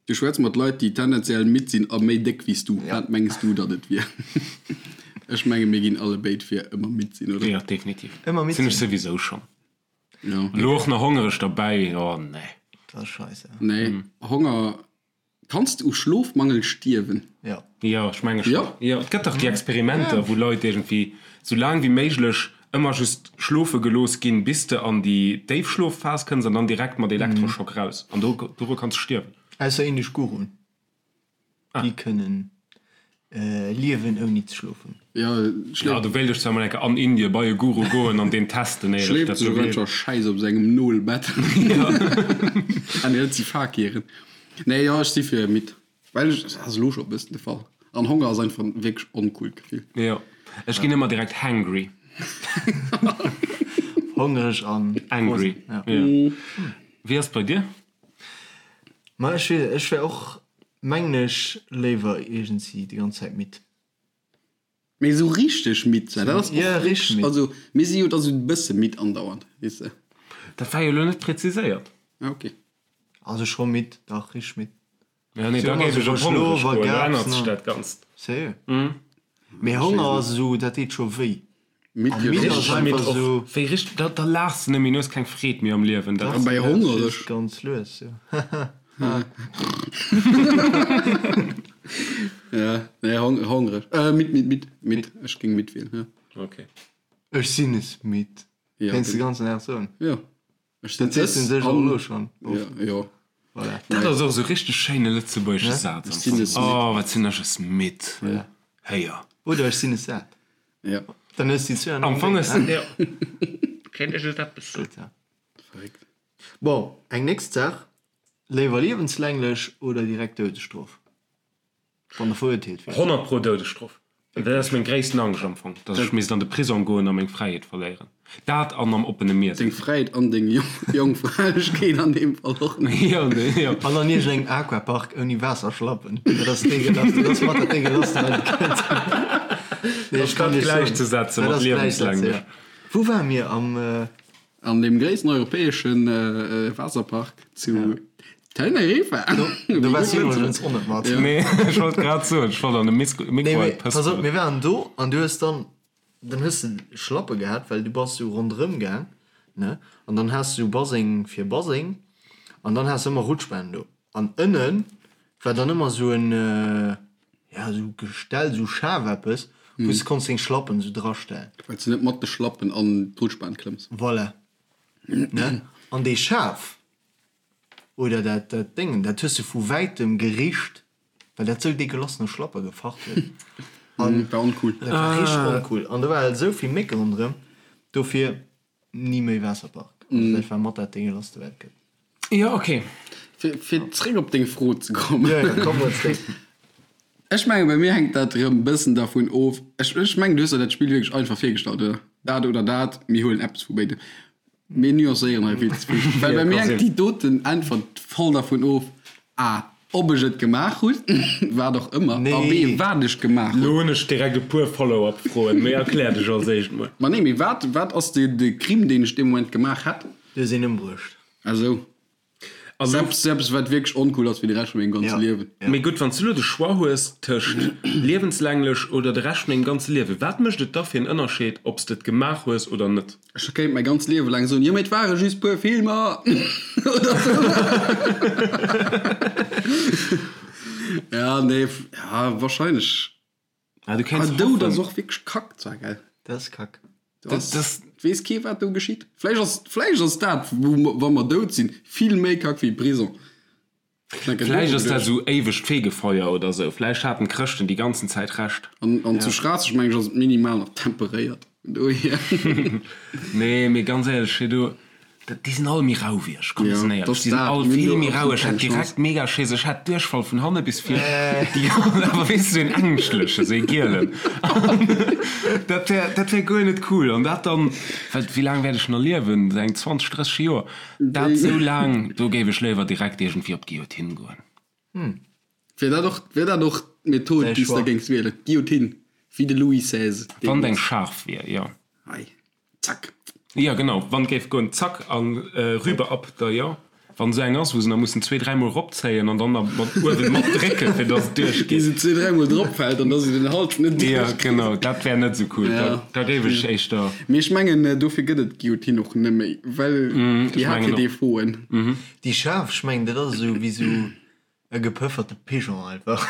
Du schwätz mat Leit, déi tendenziell midd sinn a méi déck wéi s du. Wat mengs du, datt et wier? Ech menge mir ginn allebéid fir ëmmer midd sinn, oder? Jo, definitiv. Ëmmer midd Sinn ech sinn. souwisou schonn. Jo. Elo och nach hongereg derbäi, oh nee. Dat ass scheisse. Nee, Honger Kanns de u Schlofmangel stierwen? Jo. Jo, ech menge Jo? schonn. Jo, et gëtt dach déi Experimenter, wou Leit iergendwéi sou laang wéi méiglech ëmmer just schlofe gelooss ginn, bis de an déi Déifschlofphas kënns an dann direkt mat Elektroschock raus. An do, doru kanns de stierwen. Ausser indesch Guruen. Déi kënnen liewen ouni ze schlofen. Jo, Ja, do wéilt ech zwar mol eng Kéier an Indien bei e Guru goen an deen testen, éier ech schléift dat sech do och gleewen. einfach Schäiss op sengem Nolbett. Ah nee, dat si Fakiren. Nee, jo, ech si fir midd. Well ech, dat ass elo scho e bëssen de Fall. An Honger ass einfach en wierklech oncoolt Gefill. Jo, ech ginn ëmmer direkt hangry. Hongreg an Angry, Ja. jo. Wéi ass et bei dir? Ma ech weess, ech wär och, mengen ech, léiwer iergendsi déi ganz Zäit midd. Mee esou richteg midd sinn, dat ass och Ja, richteg midd. Also mir si jo da sou e bësse midd andauernd, weess de. Dat war jo elo net präziséiert. Ah, ok. Also scho midd, dach, richteg midd. Ja, nee, da géif ech op hongreg goen, da ännert sech dat Ganzt. Sérieux? Mee Honger ass esou, dat deet scho wéi. Midd A jo midd och. ass einfach esou. Wéi richteg, da, da laachs de net méi, du hues keng Freed méi am Liewen. Dat An bei hongereg. Ganz lues, jo. Ja, nee, hong, hongreg. Äh, midd, midd, midd, midd. Ech géing midd wielen, ja. Okay. Ech sinn es midd. Ja, Kéints de ganzen Dag soen. Ja. Ech sinn Dat sees du es sech och an. elo schonn oft. Ja, jo. Voilà. Dat ass och esou richteg schéine lëtzebuergesche Saz am Ech sinn Fong. es midd. Oh, wat sinn ech es midd. Héier. Oder ech sinn es sat. Ja. Dann hues du déi zwou an Am engem Fong Déng, ass, ne? jo. Kéint ech et eppes soen. Gutt, ja. Verréckt. Bon, eng nächst Saach, Léiwer liewenslänglech oder direkt Doudesstrof, wann der verurteelt wier? 100 pro Doudesstrof. Dat ass meng gréissten Angscht am Fong, dass ech misst an de Prisong goen a meng Fräiheet verléieren. Dat an am oppene Mier Deng sinn. Fräiheet an deng Jongfräilegkeet an deem Fall och nach. Jo, jo. An an iergendengem Aquapark ouni Waasserschlappen. Dat ass deegelasst, dat ass mat dat deegelasste wat et gëtt. Nee, ech kann Dat iech soen, gläichzesetzen dat mat ass gläichsetzen, liewenslänglech. ja. Wou ware mir? Am. An deem gréissten europäesche Waasserpark zu Teneriffa. Do waars du iwwregens och net mat. Nee, ech wollt grad soen, ech wollt an de Mikro Nee, mee et pass op, pëspelen. mir waren do an du hues dann, dann hues de Schlappe gehat, well du bass sou ronderëm gaang, ne, an dann has du sou Baseng fir Baseng an dann has de ëmmer Rutschbahn do. An ënne war dann ëmmer sou en, ja, sou Gestell, sou Schaf eppes, wou s de konns deng Schlappen sou drastellen. Well s de net mat de Schlappen an d'Rutschbahn klëmms. Voilà, ne, an dee Schaf Oder dat dat Déngen, dat hues de vu wäitem gericht, well dat sou degueulass no Schlappe gefacht huet. An war oncool. Dat war richteg oncool. An do war halt esou vill Mécke ronderëm, dofir ni méi Waasserpark. Also dat war mat dat deguelasste wat et gëtt. Jo, ok. Fir fir zréck op deng Fro ze kommen. Jo, jo, komm mol zréck. Ech mengen, bei mir hänkt dat erëm bëssen dervun of. Ech ech mengen, du hues der dat Spill wierklech einfach virgestallt, oder? Dat oder dat, mir huelen eppes vu béidem. Mir nuancéieren hei vill ze vill. Well bei mir hänkt déi doten Äntwert voll dervun of, a. Ob ech et gemaach hunn, wat och ëmmer, a b. Wat ech gemaach hunn. Lo hunn ech direkt e puer Follow-up-Froen, mee erklär dech als éischt mol. Ma nee, mee wat, wat ass de, de Crime, deen ech dee Moment gemaach hätt? Du hues een ëmbruecht. Ah sou. Also, Eppes, eppes wat wierklech oncool ass fir de Rescht vun mengem ganze Ja. Liewen. Mee gutt, wann s du elo de Choix hues tëscht liewenslänglech oder de Rescht vun dengem ganze Liewen, wat mécht et da fir en Ënnerscheed, ob s de et gemaach hues oder net? Ech kéint mäi ganzt Liewe laang soen, jo mee et ware just puer Filmer oder sou. Ja, nee, ja, wahrscheinlech. Ah, du kéints Ah, Doud ass hoffen. och wierklech kack zwar, gell? Dat ass kack. Du ass, Das- weess kee wat do geschitt. Vläicht ass, vläicht ass dat, wou mer, wa mer dout sinn, vill méi kack wéi Prison. Vläicht ass dat esou éiwegt Fegefeuer oder esou. Vläicht haten d'Chrëschten déi ganzen Zäit Recht. An, an zu Schraasseg meng ech ass et minimal nach temperéiert. Vun dohier. Nee, mee ganz éierlech, hei do. Déi sinn all méi rau wéi ech, komm mir sinn éierlech, déi sinn all vill méi rau. Ech hätt direkt mega Schiss, ech hätt Duerchfall vun hanne bis vir, awer weess de, sou een ängschtlechen, sou ee gielen, dat wär, dat wär guer net cool. An dat dann, well wéi laang wäert ech nach liewen, sou eng 20, 30 Joer, dat sou laang, do géif ech léiwer direkt iergendwéi op d'Guillotine goen. Wär dat och, wär dat och d'Method, déi s de géings wielen, d'Guillotine, wéi de Louis XVI Wann et eng scharf wier, jo. Hei. Zack. Jo genau, wann géif goen, zack an rüber ab da jo. Wann esou eng ass wou se nach mussen zwee dräi mol ropzéien an dann nach mat uewen mat drécken fir dass et duerch geet. Bis et zwee dräi mol drop fält an dass se den Hals net duerch Jo genau, dat wär net esou cool, da da géif ech éischter. Mee ech mengen dofir gëtt et d'Guillotine och net méi, well déi hat hir Defauten. Déi schaarf, ech mengen dat ass esou wéi esou E gepëfferte Pigeon einfach.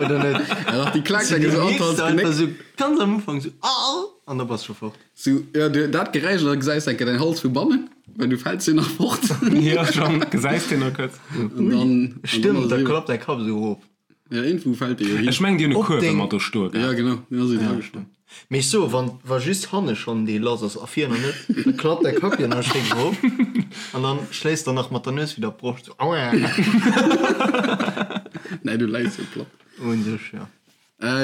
Oder net? Ja, dach, déi klaakt enke sou an d'Hals Genéck. Sou ganz am Ufank sou ah an da bass scho fort. Sou, ja, du, dat Geräisch an da gesäis enke däin Hals vu bannen, well du fäls jo nach fort. Ja, schon, gesäis deen nach kuerz. An dann, Stëmmt, da klappt däi Kapp sou erof. Ja, iergendwou fält dee jo hin. Ech mengen, déi hunn e Kuerf ëmmer do stoe gehat. Ja, genau, deen ass jo dra gestoen. Mee ech soe, wann, wa just hanne schonn dee lass ass a vir nach net, da klappt däi Kapp jo nach schéin erof an dann schléisst der nach mat der Nues widder d'Broscht, sou auaa. Nee, du läis jo platt. Un sech, jo.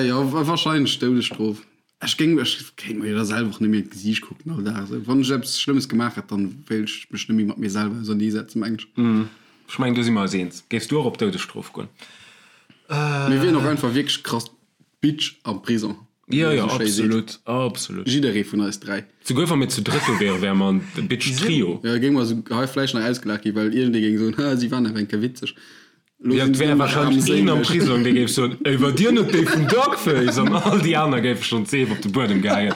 Jo, wahrscheinlech Doudesstrof. Ech géing, ech kéint mer jo da selwer och net méi an d'Gesiicht kucken all Dag esou. Wann ech eppes Schlëmmes gemaach hätt, dann wéilt ech mech net méi mat mir selwer auserneesetzen, meng ech. Ech mengen, do si mer eis eens. Géifs du och op d'Doudesstrof goen? Mir wieren och einfach wierklech krass Bitch am Prison, wéi een esou schéi seet. Jo, jo, absolut, absolut. Jidderee vun eis 3. Souguer wa mir zu drëtt do wieren, wäre mer en Bitch-Trio. Jo, géinge mer esou hei vläicht nach ausgelaacht ginn, well iergendee géing soen, Ha, si waren awer eng Kéier witzeg. Jo, et wär wahrscheinlech een am Prisong, dee géif soen, Ey, war dir net déi vun Dogface? An all déi aner géife schonn d'Seef op de Buedem geheien.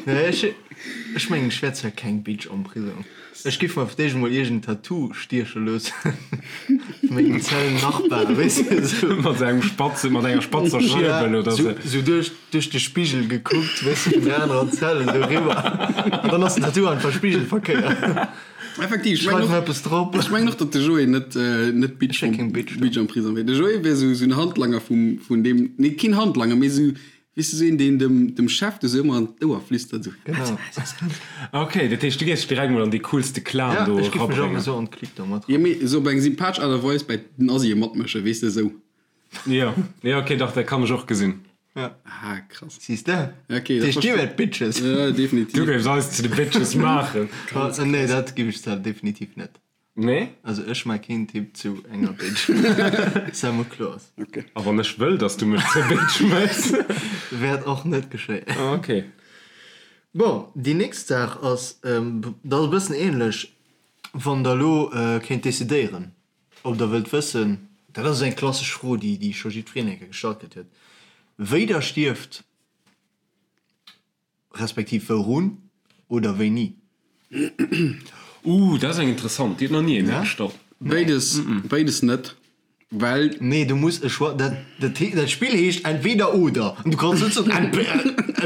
Nee, ech, ech mengen, ech wär zwar keng Bitch am Prisong. Ech giff mer fir d'éischt emol iergend Tattoo stieche loossen, vu mengem Zellennachbar, weess de, esou. Mat engem spatze, mat enger spatzer Schierbel oder sou. Voilà, sou duerch, duerch de Spigel gekuckt, weess de, vun der anerer Zell esou eriwwer. An dann ass den Tattoo einfach spigelverkéiert. Effektiv, ech mengen och, eppes drop. Ech mengen och, datt de Joé net, net Bitch, Ech keng Bitch, Bitch am Prisong wier. De Joé wier sou, sou en Handlanger vum, vun deem, nee, keen Handlanger, mee sou, weess de, sou een, deen dem, dem Chef do sou ëmmer an d'Ouer flüstert, sou. Genau. Ok, dat heescht, du géifs dech direkt mol an dee coolste Clan Ja, do ech giff mech och erabréngen. esou an d'Clique do mat Jo, mee sou op eng sympathesch Aart a Weis bäi den Asien matmëschen, weess de, sou. Jo, jo, ok, dach, dat kann ech och gesinn. Ja. Ah, krass. Siehst de? Okay, dat Heescht, dir verste- wäert Bitches. Ja, definitiv. Du géifs eis zu de Bitches maachen. Ah, nee, dat giff ech zwar definitiv net. Nee? Also ech maa keen Typ zu enger Bitch. Sei mol kloer. Okay. A wann ech wëll, dass du mech zur Bitch méchs? Wäert och net geschéien. Ah, okay. Bon, déi nächst Saach ass, dat ass e bëssen ähnlech, wann der elo kéint decidéieren, Ob der wëllt wëssen, dat ass eng klassesch Fro, déi déi scho jiddwereen eng Kéier gestallt kritt huet, wéi der stierft, respektiv wourun oder wéini. Ooh, dat ass eng interessant, déi huet nach ni ee mir gestallt. Béides, béides net. Well. Nee, du muss e Choix, dat, dat, dat Spill heescht entweder oder an du kanns net soen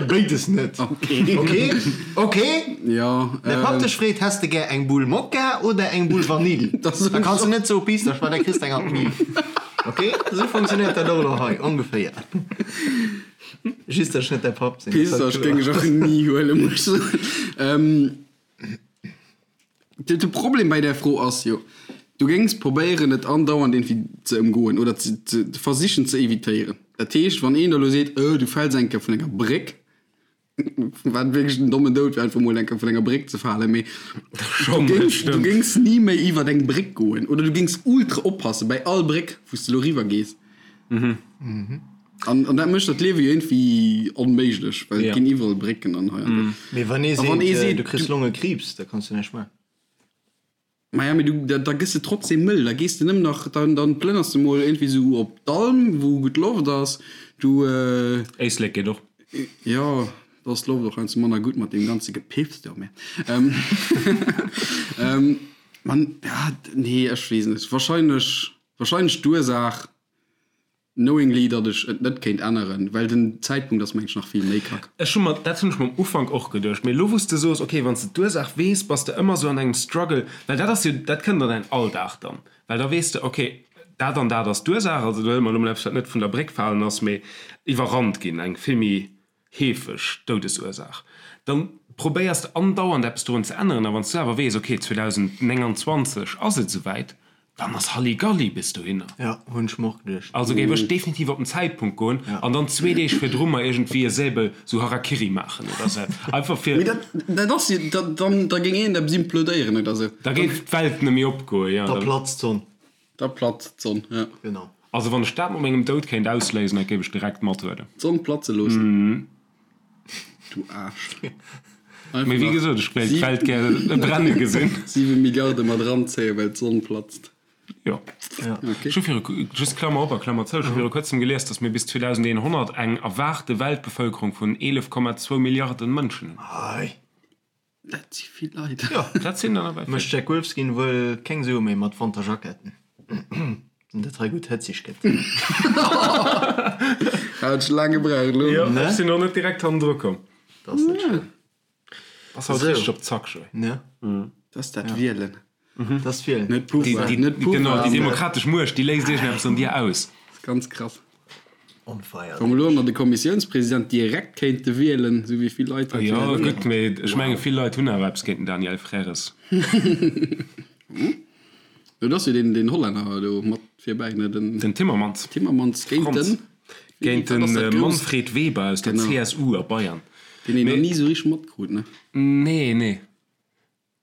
béides net. Okay. Okay? Okay? Jo. Däi Papp dech freet, Häss de gär eng Bull Mokka oder eng Bull Vanill? Da Da kanns du net soe Pistasch, well da kriss de eng an d'Mill. Okay? Esou funktionéiert dat och elo hei ongeféier. Just, datt ech net däi Papp sinn. Pistasch géing ech och ni huelen, muss ech soen. De Problem bei där Fro ass jo, du géings probéieren et andauernd iergendwéi ze ëmgoen oder ze ze versichen ze evitéieren. Dat heescht, wann een der elo seet, oh du fäls eng Kéier vun enger Bréck, wat wierklech en dommen Doud wär, einfach mol eng Kéier vun enger Bréck ze falen, mee du géings, du géings ni méi iwwert eng Bréck goen oder du géings ultra oppasse bei all Bréck, wou s de elo riwwer gees. An, an dat mécht dat Liewe jo iergendwéi onméiglech, well et ginn iwwerall Brécken an hei an do. Mee wann ee A wann ee seet, seet, du kriss du- Longekriibs, da kanns du näischt maachen. Maja, mee du, da, da gëss de trotzdem mëll, da gees de nëmmen nach, dann, dann plënners de mol iergendwéi sou op d'Alm, wou gutt Loft ass, du, Éislek geet och. Jo, da ass d'Loft och heiansdo manner gutt mat deem ganze Gepiffs do, mä, man, ja, nee, ech weess net, wahrscheinlech, wahrscheinlech d'Ursaach. Knowingly datt ech et net kéint änneren, well den Zäitpunkt ass mengen ech nach vill méi kack. Ech hu mer, dat hunn ech mer am Ufank och geduecht, mee elo wou s de soos, ok, wann s de d'Ursaach weess, bass de ëmmer sou an engem Struggle, well dat ass jo, dat kënnt an däin Alldag dann, well da weess de, ok, dat an dat ass d'Ursaach, also do huele mer elo mol eppes wat net vun der Bréck falen ass, mee iwwerrannt ginn, eng vill méi heefeg Doudesursaach, dann. probéiers de andauernd eppes dorun ze änneren. A wann s du awer weess, okay, 2029 ass et esouwäit, dann ass Halligalli bis dohinner. Ja, hunn ech mer och geduecht. Also géif ech definitiv op den Zäitpunkt goen an dann zwee Deeg virdru mer iergendwéi e Säbel sou Harakiri maachen oder sou. Einfach fir. Mee dat, dat ass jo, da, dann, da géing iergendeppes implodéieren oder sou. Da géif d'Welt net méi opgoen, jo. Da platzt d'Sonn. Da platzt d'Sonn, jo. Genau. Also wann ech dat mat mengem Doud kéint ausléisen, dat géif ech direkt mathuelen. D'Sonn platze loossen. Du Aarsch. Mee wéi gesot, ech wéilt d'Welt gär brenne gesinn. 7 Milliarde mat eranzéien, well d'Sonn platzt. Jo. Ech hu viru, just Klammer op a Klammer zou, ech hu viru kuerzem gelies, datt mir bis 2100 eng erwaarte Weltbevëlkerung vun 11,2 Milliarden Mënschen hunn. Hei. Dat si vill Leit. Jo, dat sinn der nawell vill. Mécht Jack Wolfskin wuel keng Sue méi mat Wanterjacketten, wann dat hei gutt hëtzeg gëtt. Hat ech laang gebraucht elo. Jo, ech sinn och net direkt hannendru komm. Dat ass net schlëmm. Ass haut richteg op Zack, Joé. Ne? Dat ass dat Wielen. Dat ass d'Wielen. Net Pouvoir, net Pouvoir. Genau, déi demokratesch Muecht, déi léist iergendeppes an dir aus. Dat ass ganz krass. On fire. Wa mer elo nach de Kommissiounspresident direkt kéinte wielen, esou wéi vill Leit dat Jo, gutt, mee ech menge vill Leit hunn awer eppes géint den Daniel Frères. Jo, do ass jo deen, deen Hollänner do mat virbäi, ne? Den. Den Timmermans. Timmermans géint den. Géint de Manfred Weber aus der CSU a Bayern. Deen een nach ni esou richteg matkrut, ne? Nee, nee.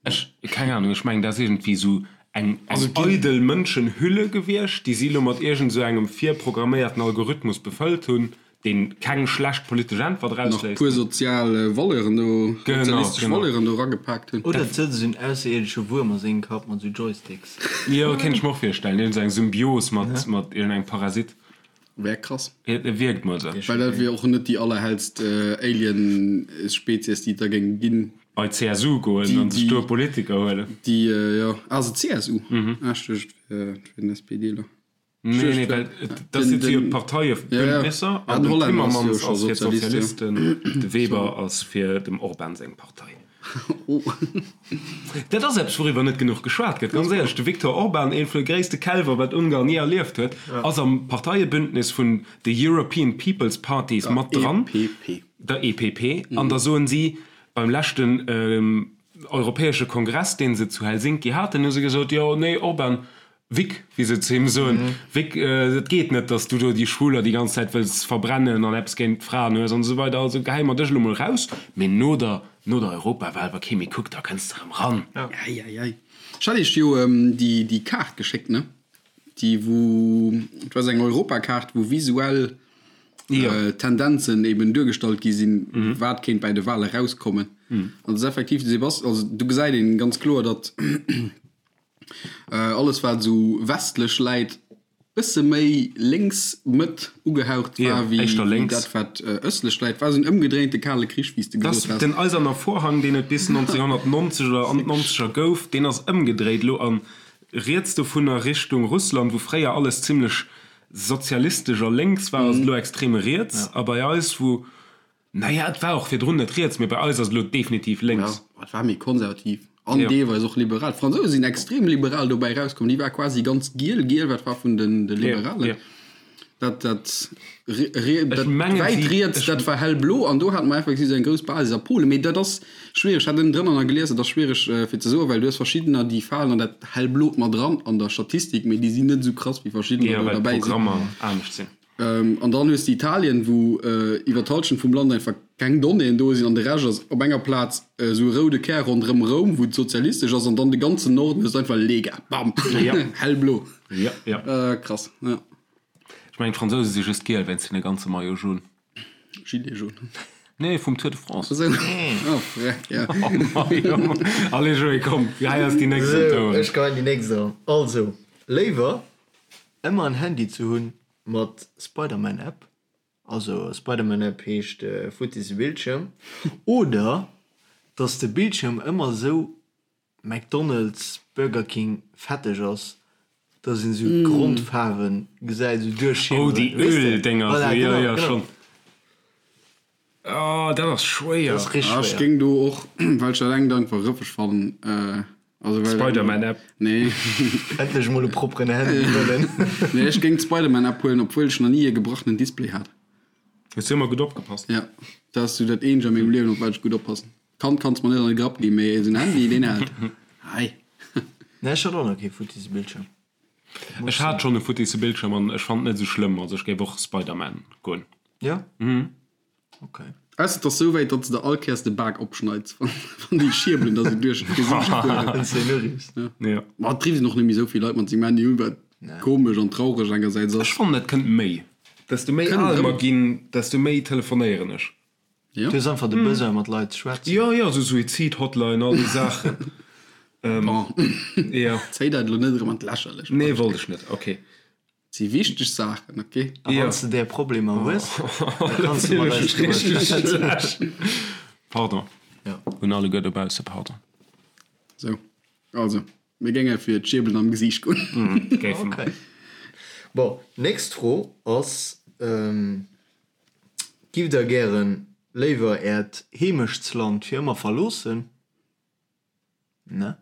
Ech, keng Ahnung, ech mengen, dat ass iergendwéi esou eng eidel Mënschenhülle gewiescht, déi si elo mat iergend esou engem virprogramméierten Algorithmus befëllt hunn, dee keng schlecht politesch Äntwert Nach erausléisst. puer sozial Valeuren do, Genau, sozialistesch genau. Valeuren do eragepaakt hunn. Oder et sëtzt esou en ausserierdesche Wuerm a sengem Kapp mat esou Joysticks. Jo, kéint ech mer och virstellen, iergend esou eng Symbios mat, mat iergendengem Parasit. Wär krass. Et wierkt mol sou. Well dat wier och net déi allerhellst Alien-Spezies, déi et da géing ginn. Bei d'CSU goen an sech do e Politiker huelen. Déi, jo. Ah, se CSU? Ah, ech duecht, et wär den SPDler. Nee, nee, well dat si jo d'Parteiebündnisser an den Timmermans ass fir d'Sozialisten, de Weber ass fir dem Orban seng Partei. Dat ass eppes, wouriwwer net genuch geschwat gëtt, ganz éierlech. De Viktor Orban, ee vun de gréisste Kälwer, wat Ungarn ni erlieft huet, ass am Parteiebündnis vun de European People's Parties mat dran, der EPP. An da soen si, beim leschten europäesche Kongress, dee se zu Helsinki haten, hu se gesot, jo, nee, Orban, Vic, wéi se zu him soen, Vic, et geet net, datt s du do déi Schwuler déi ganz Zäit wëlls verbrennen an eppes géint d'Fraen hues an esou weider. Also gehäi mer dech elo mol raus, mee no der, no der Europawal, wa kee méi kuckt, da kënns de erëm ran. Ei, ei, ei. Ech hat iech jo déi, déi Kaart geschéckt, ne? Déi wou, et war esou eng Europakaart, wou visuell Tendenzen eben duergestallt gi sinn, wat kéint bäi de Wale rauskommen. An et ass effektiv, de Sebast, also do gesäit een ganz kloer, datt, Alles wat esou westlech läit, bësse méi lénks, Mëtt ugehaucht war wéi dat wat ëstlech läit. War esou en ëmgedréinte kale Krich, wéi s de gesot has. Den eiserner Vorhang, deen et bis 1990 oder an d'Nonzeger gouf, deen ass ëmgedréit elo an riets dovunner Richtung Russland, wou fréier alles zimlech sozialistesch a lénks war, ass et elo extrem riets. A bei eis, wou Naja, et war och virdrun net riets, mee bei eis ass et elo definitiv lénks. Ja, et war méi konservativ an deelweis och liberal. D'Fransouse sinn extrem liberal dobäi erauskomm. Déi war quasi ganz giel, giel, wat war vun den de Liberalen. Dat, dat, dat wäit riets, dat war hellblo an do hate mer effektiv esou eng grouss Basis a Polen. Mee dat ass schwiereg, ech hat ënnendrënner nach gelies, dat ass schwiereg fir ze soen, well du hues verschiddener, déi falen an dat hellblot mat eran an der Statistik, mee déi sinn net esou krass wéi verschiddener do derbäi sinn. Jo, well d'Programmer anescht sinn. An dann hues de Italien, wou iwwer d'Halschent vum Land einfach keng Donnéeën do sinn an de Rescht ass op enger Plaz esou e roude Kär ronderëm Roum, wou et sozialistesch ass, an dann de ganzen Norden hues de einfach Lega, bam, hellblo. Krass, jo. Ech mengen d'Fransouse si just giel wéinst hinne ganze Maillot jaune. Gilet jaune. Nee, vum Tour de France. Esou, oh freck, jo. Allez Joé, komm, hei ass déi nächst um Tour. Esou, ech geheien déi nächst eran. Also, léiwer ëmmer en Handy ze hunn mat Spiderman App, also Spiderman App heescht futtisse Bildschirm, oder dass de Bildschirm ëmmer esou McDonald's, Burger King fetteg ass, dass een esou d'Grondfaarwen gesäit, esou duerchschimmeren. Oh déi Öl-Dénger, esou, jo jo schonn. Oh dat ass schwéier. Dat ass richteg schwéier. Ech géing do och, well ech dat engt einfach rëffeg fannen, also well. Spiderman App. Nee. Endlech mol e propperen Handy wëllen. Nee, ech géing d'Spiderman App huelen, obwuel ech nach ni e gebrachenen Display hat. Hues du ëmmer gutt opgepasst? Ja, dat ass sou dat eenzegt a mengem Liewen, op wat ech gutt oppassen. Kand kanns mer net an de Grapp ginn, mee esou en Handy, deen hält. Hei. Nee, ech hat och nach kee futtisse Bildschirm. Ech hat schonn e futtisse Bildschirm an ech fannen et net esou schlëmm. Also ech géif och Spider-Man goen. Jo? Ok. Ausser et ass sou wäit, datt s de all Kéiers de Bak opschneids, wann déi Schierbelen der sou duerch d'Gesiicht fueren. Wann s de en uriffs. Jo. Ma et rifft och net méi sou vill Leit mat sengem Handy un, wat komesch an traureg engersäits ass. Ech fannen et kënnt méi. Desto méi Kënnt al erëm. mer ginn, desto méi telefonéieren ech. Jo. Du hues einfach de Besoin mat Leit ze schwätzen. Jo, jo, sou Suizid-Hotline, all déi Saachen. Bon. Jo. Zéi dat elo net erëm an d'Lächerlecht. Nee, wollt ech net. Ok. Et si wichteg Saachen, ok? A wann s de där Problemer hues, da kanns de mat eis driwwer schwätzen. Pardon. Jo. Un alleguer dobausse, pardon. Sou, also, mir géinge fir d'Schierbelen am Gesiicht goen. Géife mer. Ok. Bon, nächst Fro ass, Giff der gären léiwer äert Heemechtsland fir ëmmer verloossen? Ne?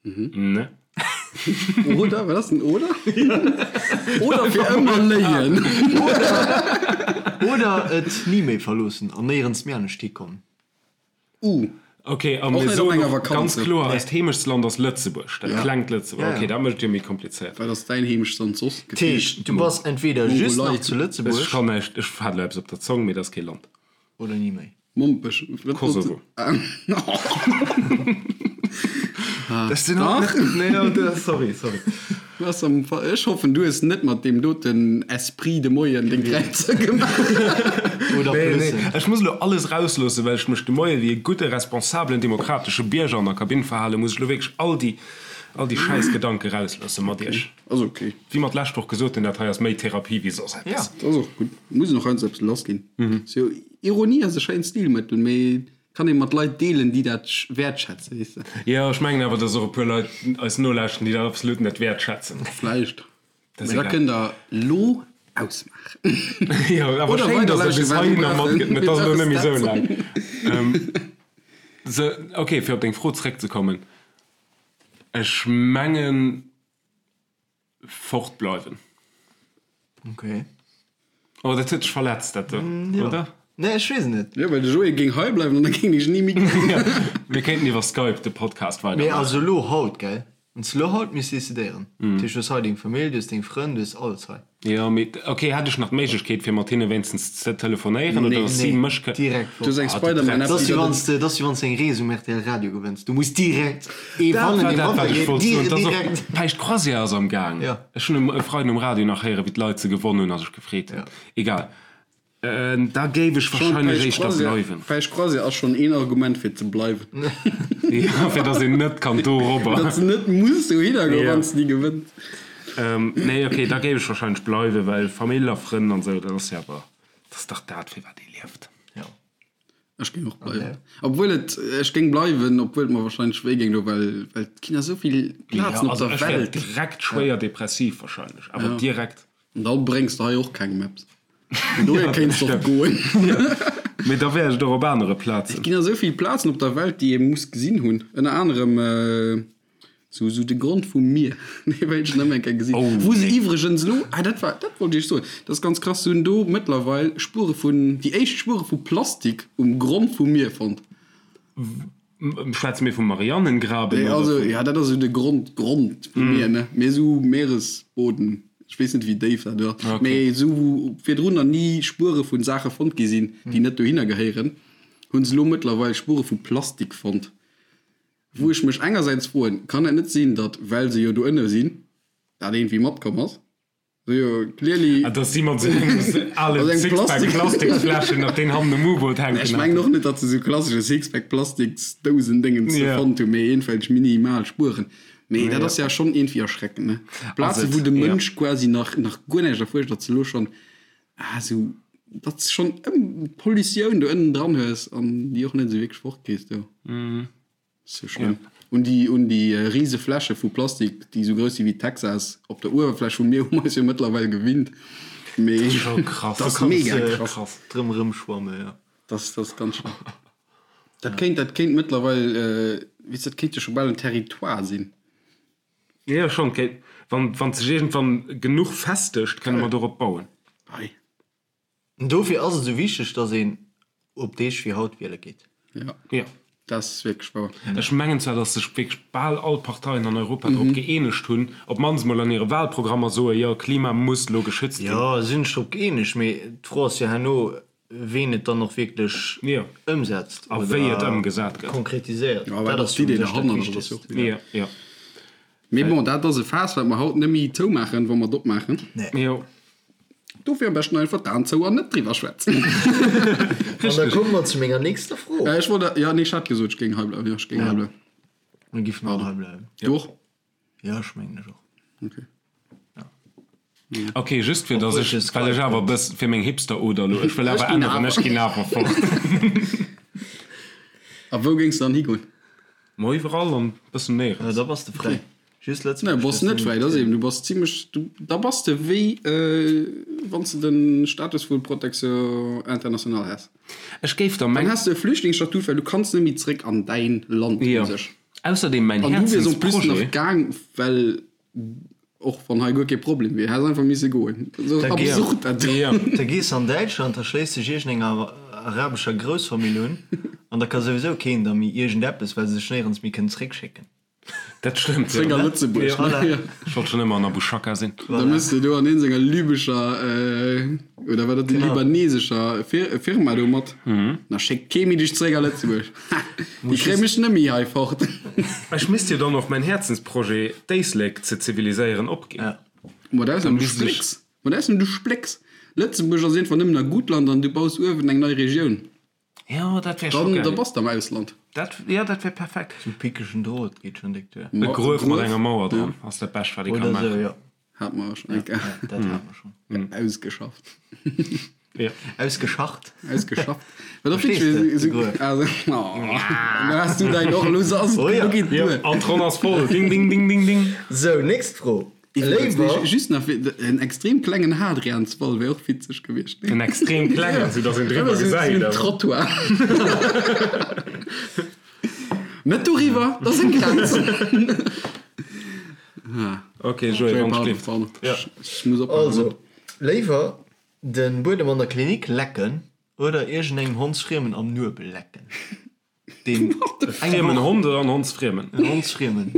Ne. Oder? Wat ass den oder? Oder fir ëmmer léien. Oder et ni méi verloossen an néierens méi anescht hikommen. Uh. Ok, a Och mir net op soen enger och Vakanz. ganz kloer, eist Heemechtsland ass Lëtzebuerg, dat Ja. klengt Lëtzebuerg. Ja, ja. Ok, dat mécht et jo méi komplizéiert. Wat ass däin Heemechtsland soss? Dat heescht, du bass entweder just Mongolei. nach zu Ech Lëtzebuerg. kann näischt, ech hat elo eppes op der Zong, mee dat ass kee Land. Oder ni méi. Mompech. Wat Kosovo. Dach. Nee, ja, sorry, sorry. Was am Fa Ech hoffen, du hues net mat deem doten Esprit de Moien deng Kräizer gemaach. Oder Nee, nee, Plussen. ech muss elo alles rausloossen, well ech mech de Moie wéi e gudde, responsabelen, demokratesche Bierger an der Kabinn verhalen, muss ech elo wierklech all déi, all déi schäiss Gedanke rausloosse mat iech. Ass ok. Wéi mer d'lescht Woch gesot hunn, dat hei ass méi Therapie wéi soss eppes. Ja. Dat ass och gutt. Muss een och heiansdo eppes lassginn. Sou, Ironie ass e schéint Stilmëttel, mee kann ee mat Leit deelen, déi dat wäertschätzen, weess de. Jo, ech mengen awer, dass och e puer Leit eis nolauschten, déi dat absolut net wäertschätzen. Vläicht. Dat ass Mee da egal. kënnt der lo ausmaachen. Jo, awer Oder schéin, dass der weiderlauschteren, bis well heihinner mir brauchen matgëtt. Et ass elo net méi sou laang. dat. Sou, ok, fir op deng Fro zeréckzekommen, Ech mengen, Fort bleiwen. Ok. Oh, dat huet dech verletzt, dat do, Jo. oder? Nee, ech weess et net. Jo, well de Joé géing hei bleiwen an da géing ech ni méi kommen. Mir kéinten iwwer Skype de Podcast Mee weidermaachen. also elo haut, gell? Wann s de elo haut misst decidéieren. Dat heescht, du hues hei deng Famill, du hues deng Frënn, du hues alles hei. Jo, mee ok, hätt ech nach d'Méiglechkeet fir mat hinne wéinstens ze telefonéieren oder Nee. dass si Nee, mech kë. direkt Du hues fort. eng Ah, du Spider-Man-App, Dat ass déi wéi der wann s de, dat ass wéi wann s de eng Rees um rtl Radio gewënns. Du muss direkt ee Dat fannen, war dee dat, wat ech matgeet. wollt soen. Dir, Dat ass och, direkt. Päischt Croisière ass am Gaang. Ja. Ech hunn um e Freiden um Radio nach héieren, wéi d'Leit se gewonnen hunn a sech gefreet hunn. Ja. Egal. Da géif ech Schon wahrscheinlech Päischt éischter Croisière, bleiwen. Päischt Croisière ass schon een Argument fir ze bleiwen. Ja, fir dass een net kann dorobber. Datt s net muss dohinner goen, Ja. wann s de déi gewënns. Nee, ok, da géif ech wahrscheinlech bleiwen, well Famill a Frënn an esou, dat ass jo awer, dat ass dach dat, fir wat ee lieft. Ja. Ech géing och bleiwen. Obwuel et, ech géing bleiwen, obwuel et mer wahrscheinlech wéi géing do, well, well et ginn esou vill Plazen Ja, op also der ech wär Welt. direkt schwéier depressiv wahrscheinlech, awer direkt. An da bréngs de hei och kengem eppes. Vun dohier kéints de och goen. Mee da wär ech et och op anere Et Plazen. ginn esou vill Plazen op der Welt, déi ee muss gesinn hunn. Ënner anerem sou sou de Grond vum Mier, dee wéilt ech nach eng Kéier gesinn. Oh, Wou se nee. iwwregens elo, ah dat war, dat wollt ech iech soen, dat ass ganz krass, se hunn do mëttlerweil Spuere vun, déi éischt Spuere vu Plastik um Grond vum Mier fonnt. Schwätze mir vum Marianengraben? Nee, oder also, vum. ja, dat ass esou de Grond, Grond vum Mier, ne? Mee esou Meeresboden, ech weess net, wéi déif dat ass, Okay. mee esou wou virdrun nach ni Spuere vu Saache fonnt gi sinn, déi net dohinner gehéieren, hu se elo mëttlerweil Spuere vu Plastik fonnt. Wou ech mech engersäits froen, kann et net sinn, datt, well se jo do ënne sinn, dat iergendwéi matkomm ass? Jo, clearly. Ah, dass si mat esou engem alen Mat engem Sixpack Plastik- Plastiksfläschen nach deen hannen um U-Boot hänken Ech mengen haten. och net, datt se sou klassesche Sixpack Plastiksdousen-Déngens Ja. fonnt hunn, mee iergendwelch minimal Spueren. Mee dat Ja. ass ja schonn iergendwéi erschreckend, ne? Plaze Ass et, wou de ja. Mënsch quasi nach, nach guer näischt erfuerscht, datt se elo schonn, ah, sou, datt s schonn ëm Pollutioun do ënnen dran hues an déi och net esou wierklech fortkriss do. Sou schlëmm. Un déi, un déi rise Fläche vu Plastik, déi sou grouss si wéi Texas, op der Uewerfläch vum Mier hu mer eis jo mëttlerweil gewinnt. Mee Scho krass. dat ass Kanns mega de krass. drëm erëmschwamme, jo. Dat ass, dat ass ganz schlëmm. Dat kéint, dat kéint mëttlerweil, weess, dat kéint jo scho bal en Territoire sinn. Jo, schonn. Kéint, wann, wann sech iergendwann genuch festegt, kënne mer dorop bauen. Ei. Dofir ass et esou wichteg, dass een op Deeg wéi haut wiele geet. Ja. Ja. Dat ass wierklech wouer. Ech mengen zwar, datt sech wierklech bal all Parteien an Europa drop gëeenegt hunn, op d'mannst mol an hire Wahlprogrammer soen, jo, Klima muss elo geschützt ginn. Jo, si sinn sech drop gëeenegt, mee d'Fro ass jo herno, ween et dann och wierklech ëmsetzt A wéi et ëmgesat gëtt. konkretiséiert. Ja, wat Dat ass ass jo u d'Idee sech dat derhannert? Dat ass jo Wichtegst. och Jo, jo. Mee bon, dat ass e Faass, wat mer haut net méi zoumaachen, wa mer et opmaachen. Nee. Jo. Dofir am beschten einfach d'Aen zou an net driwwer schwätzen. An da komme mer zu menger nächster Fro. Ech wollt, jo, nee, ech hat gesot, ech géing hei bleiwen. Jo, ech géing hei bleiwen. Mir giffen all hei bleiwen. Du och? Jo, ech mengen ech och. Okay. Ok, just fir dass Obwuel ech, ech es well ech geil awer e fënn. bëss, fir meng Hipster-Oder elo, ech wëll Ech awer ginn änneren, awer. ech ginn awer fort. A wou géings de dann higoen? Ma iwwerall an bëssen Jo, néierens. da bass de fräi. Just Nee, Lëtzebuerg bass dierfs net de fräi, net. dat ass eben, du bass zimlech, du, da bass de wéi wann s de de Status vu Protection internationale häss. Ech géif der Dann meng. häss de e Flüchtlingsstatut, well du kanns net méi zréck an däin Land u Jo. sech. Ausserdeem mäin An du wiers en plus nach Herzensprojet. gaang, well och wann hei guer kee Problem wier, häss einfach misse goen. Esou Da gees absurd dat. Jo. Da gees an Däitschland, da schléiss dech iergendenger arabescher Groussfamill un an da ka souwisou keen der méi iergendeppes, well se dech néierens méi kënnen zréckschécken. Dat stëmmt, Zréck jo. a Lëtzebuerg, ne? Voilà. Jo. Ech wollt schonn ëmmer an Abu Shaka sinn. Da mëss de do an een senger libescher, oder war dat déi libanesescher Firma do mat? Da schéckt kee méi dech zréck a Lëtzebuerg. Ha! Déi kréie mech net méi hei fort. Ech misst jo dann och mäin Häerzensprojet, d'Éislek ze ziviliséieren, opginn. Ja. Mat Ausnam du misst ech. splécks. Mat Ausnam du splécks. Lëtzebuerg ass iergendwann nëmmen a Gutland an du baus uewen eng nei Regioun. Jo, dat wär scho Dann, da geil. bass de am Ausland. Dat, jo, dat wär perfekt. Sou pickegen Drot geet schon déck duer. E Gruef mat enger Mauer dran ass dat Bescht, wat ee ka Oder sou, maachen. jo. Hat mer schon eng Kéier. Ja, dat hat mer schon. Ausgeschafft. Jo. Ausgeschacht. Ausgeschafft. Wat och Verstees de, de Gruef? Also, oh, da has du däin och elo se ass et Oh ja. genuch geet Jo, duer. an d'Ronn ass voll. Ding, ding, ding, ding, ding. Sou, nächst Fro. Iwwregens, Léiwer. nee, just nach fir, en extrem klengen Hadrianswall wär och witzeg gewiescht, nee? En extrem klengen, sou dass een driwwer Sou gesäit, en awer. Trottoir. Net doriwwer, dat ass eng Grenz. Ok, Joé, wann Pardon, schléift. pardon. Ja. Ech muss oppassen. Also, léiwer den Buedem an der Klinik lecken oder iergendengem Hondsfriemen am Nuebel lecken? Deen E friemen Hond oder en Hondsfriemen? En Hondsfriemen.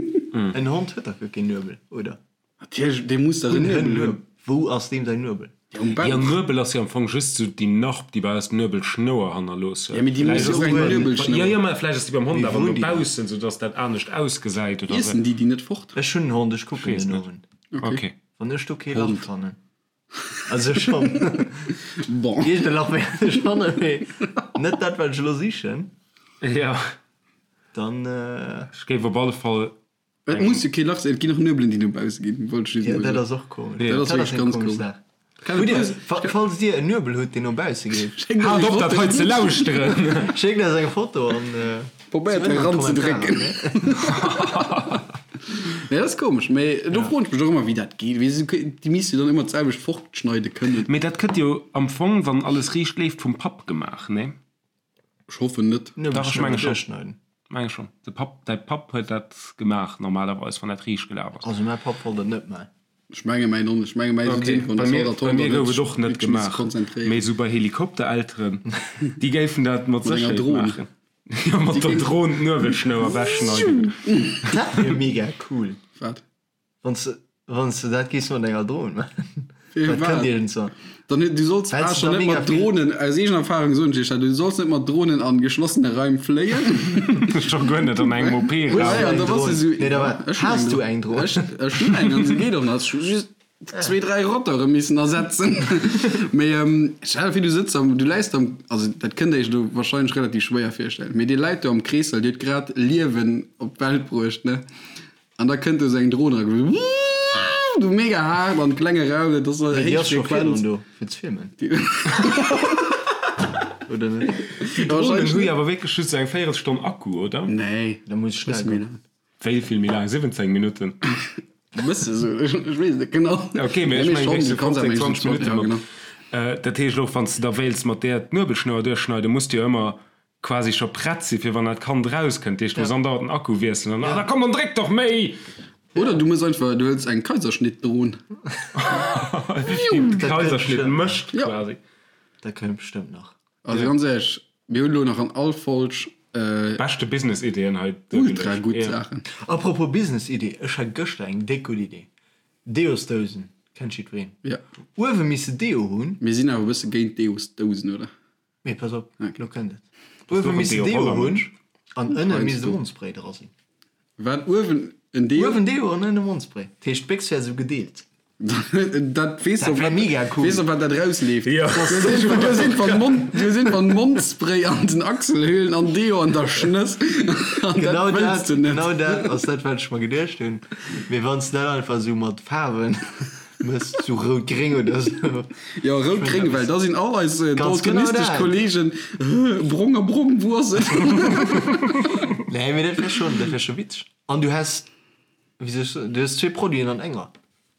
En Hond huet dach guer keen Nuebel, oder? Natierlech, dee muss dach en Nuebel hunn. Wou ass deem säin Nuebel? Ja, um Bauch. Jo, Nuebel ass jo am Fong just sou déi Narb, déi bei eis d'Nuebelschnouer hannerlooss huet. Ja, mee déi muss jo och eng Nuebelschnouer. Jo, jo, mä vläicht ass déi beim Hond Mee awer wou no hunn déi dat? baussen, sou dass dat anescht ausgesäit oder sou. Iessen déi déi net fort? Ech hunn en Hond, ech kucken Weess den net. Owend. Okay. Wann ech do kee Lach Hond. fannen. Also schonn. Bon. Iergend e Lach wäert ech fannen, mee net dat, wat ech elo sichen. Jo. Dann. Ech géif op alle Fall. Et muss jo kee Lach sinn, et ginn och Nuebelen, déi no bausse ginn, wollt ech just Jo, emol dat soen. ass och komesch. Jo. Dat ass Dat ass wierklech eng ganz komesch komesch. Saach. Kann Hutt et Dir, böse- fa- falls Dir en Nuebel hutt, deen no bausse geet, Schéckt Haalt eis op, eng dat Foto. hei ze lauschteren! schéckt eis eng Foto an. Probéiert Zumindest eran ze drécken. Nee, dat ass komesch, mee do froen ech mech och ëmmer, wéi dat geet. Wéi se, déi misste jo dann ëmmer d'selwecht fortschneide kënnen. Mee dat gëtt jo am Fong, wann alles riicht leeft, vum Papp gemaach, nee? Ech hoffen net. Dach, ech menge schonn. Menge schonn. De Papp, däi Papp huet dat gemaach normalerweis, wann dat riicht gelaf ass. Also mäi Papp wollt dat net maachen. Ech menge mäin och net. Ech menge mäi Okay, sinn bei mir, bei mir gouf et och net gemaach. Mee esou bei Helikopterelteren, déi géifen dat mat Mat enger Sécherheet Dron. maachen. Jo, mat der Dron d'Nuebelschnouer ewechschneiden. Dat wier mega cool. Wat? Wann s wann s de dat géifs mat enger Dron maachen. Fir Dat wat? kënnt iergendzwann. Dann, du solls Well ah, s schon da net mega mat vill- Drohnen, aus eegener Erfahrung soen ech iech dat, du solls net mat Drohnen an geschlossene Raim fléien. Scho guer net an engem OP-Raum. Ja, ja, eng da bass du Dron? so, Nee, da war- Ech hunn Has eng du Dron. eng Dron? Ech, ech hunn eng an se geet och nach. Ech hu just zwee, dräi Rotore missen ersetzen. Mee ähm, stell dir vir, du sëtz am, du läis am, also dat kënnt der iech elo wahrscheinlech relativ schwéier virstellen, mee dir läit do am Kreessall, dir hutt grad Liewen op d'Welt bruecht, ne? An da kënnt do sou eng Dron era, du mega haart an klenge Raum, dat ass Déi héich ass scho Frequenz. virdrun do fir ze filmen. Oder net? Déi Dronen hu jo awer wierklech just sou eng Véierelstonn Akku, oder? Nee, Da muss schnell bësse méi goen. laang. Wéi vill méi laang? 17 Minutten? Bësse sou, ech weess et net genau. Ok, mee ech Nee, mengen schon, wéinst du kanns awer 15, 20 ja, Minutten mat. genau. Dat heescht och, wann s de da wéilts mat där d'Nuebelschnouer duerchschneiden, muss de jo ëmmer quasi scho prett sinn, fir wann dat Kand erauskënnt. Dat heescht, du muss andauernd den Akku wiesselen an, ah, da komm, dann dréck doch méi! Oder du mëss einfach, du hëls eng Kaiserschnittdron. Déi de Kaiserschnitt mécht Ja. quasi. Dat kënnt bestëmmt nach. Also ganz éierlech, mir hunn elo nach an all Folg. Beschte Business-Ideen hei Ultra gutt Saachen. Apropos Business-Idee, ech hat gëschter eng déck gutt Idee. Deosdousen, kennt jiddwereen. Jo. Uewe misse Deo hunn. Mir sinn awer e bësse géint Deosdousen, oder? Mee pass op, lo kënnt et. Uewe misst de Deo hunn an ënne misst e Mondspray dra sinn. Wat? Uewen en Deo? Uewen Deo an ënne Mondspray. Dat heescht d'Béchs wär esou gedeelt. Dat weess Dat wär mega cool. Weess op wat dat rausleeft. Du sinn van Mond, du sinn van Mondspray an den Achselhöhlen an Deo an der Schnëss. An dat Genau wëlls dat, du net. genau dat ass dat wat ech mer geduecht hunn. Mee wann s de dat einfach esou mat Faarwen Mëss zu rout-gréng oder sou. Jo, rout-gréng, well da sinn all eis Ganz genau daltonistesch dat. Kollegen, brong a brong, wou ass et? Nee, mee dat wär schonn, dat wär scho witzeg. An du häss, wéi soll ech soen, du häss zwee Produiten an enger.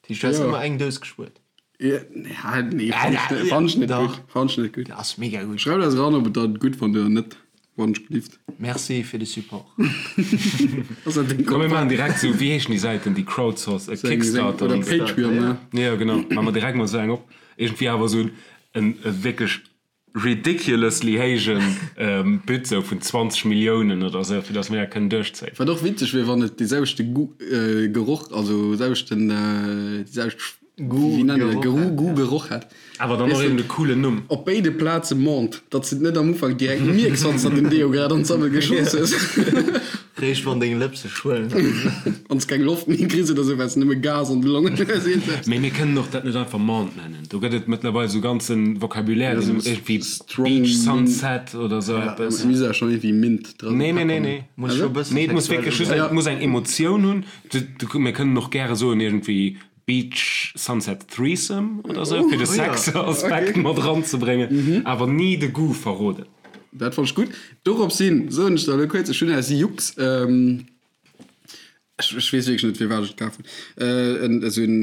Dat heescht, du häss Jo. ëmmer eng Dous gespuert. Ja, nee, fann ech net, fann ech net Dach. gutt, fann ech net gutt. Dat ass mega gutt. Schreift eis eran, ob et der gutt fannt oder net. Wann ech gelift. Merci fir de Support. Ass dat deng Komm mir Kontakt? maachen direkt sou, wéi heeschen déi Säiten, déi Crowdsource, äh, Kickstarter Oder an sou. Patreon, ne? Jo genau, maache mer direkt mol sou eng op. Iergendwéi awer sou en e wierklech ridiculously héijen But sou vun 20 Milliounen oder sou, fir datt mir dat kënnen duerchzéien. Wat och witzeg wier, wann et dee selwechte Goût, Geroch, also selwechten, déi selwecht Goût, Wéi nennen Geroch Geru, hätt, Goût, ja. Geroch hätt. Awer dann och Weess eben de, de coolen Numm. op béide Plaze Menthe, datt s de et net am Ufank direkt mierks, wann s de den Deo grad an d'Sammel geschoss hues. Réischt wann deng Lëpse schwëllen. Wann s keng Loft méi kriss oder sou, well s nëmme Gas an de Longen hues, iergendwas. Mee mir kënnen och dat net einfach Menthe nennen. Do gëtt et mëttlerweil sou ganze Vocabulaire, Ja, deen sou iergendwéi strong Beach Mint. Sunset oder sou Ja, eppes. mir si ja schonn iergendwéi Mint dran. Nee, nee, nee, nee. Muss scho e bësse Nee, et muss sexuell wierklech just, ubréngen. et muss eng Emotioun hunn. Du, du, mir kënnen och gäre soen iergendwéi Beach Sunset Threesome oder sou, fir de Sex-Aspekt mat eranzebréngen, awer ni de Goût verroden. Dat fannt ech gutt. Dorops hin soen ech der elo kuerz, ech hunn aus Jux, ech weess wierklech net firwat ech et kaf hunn, esou en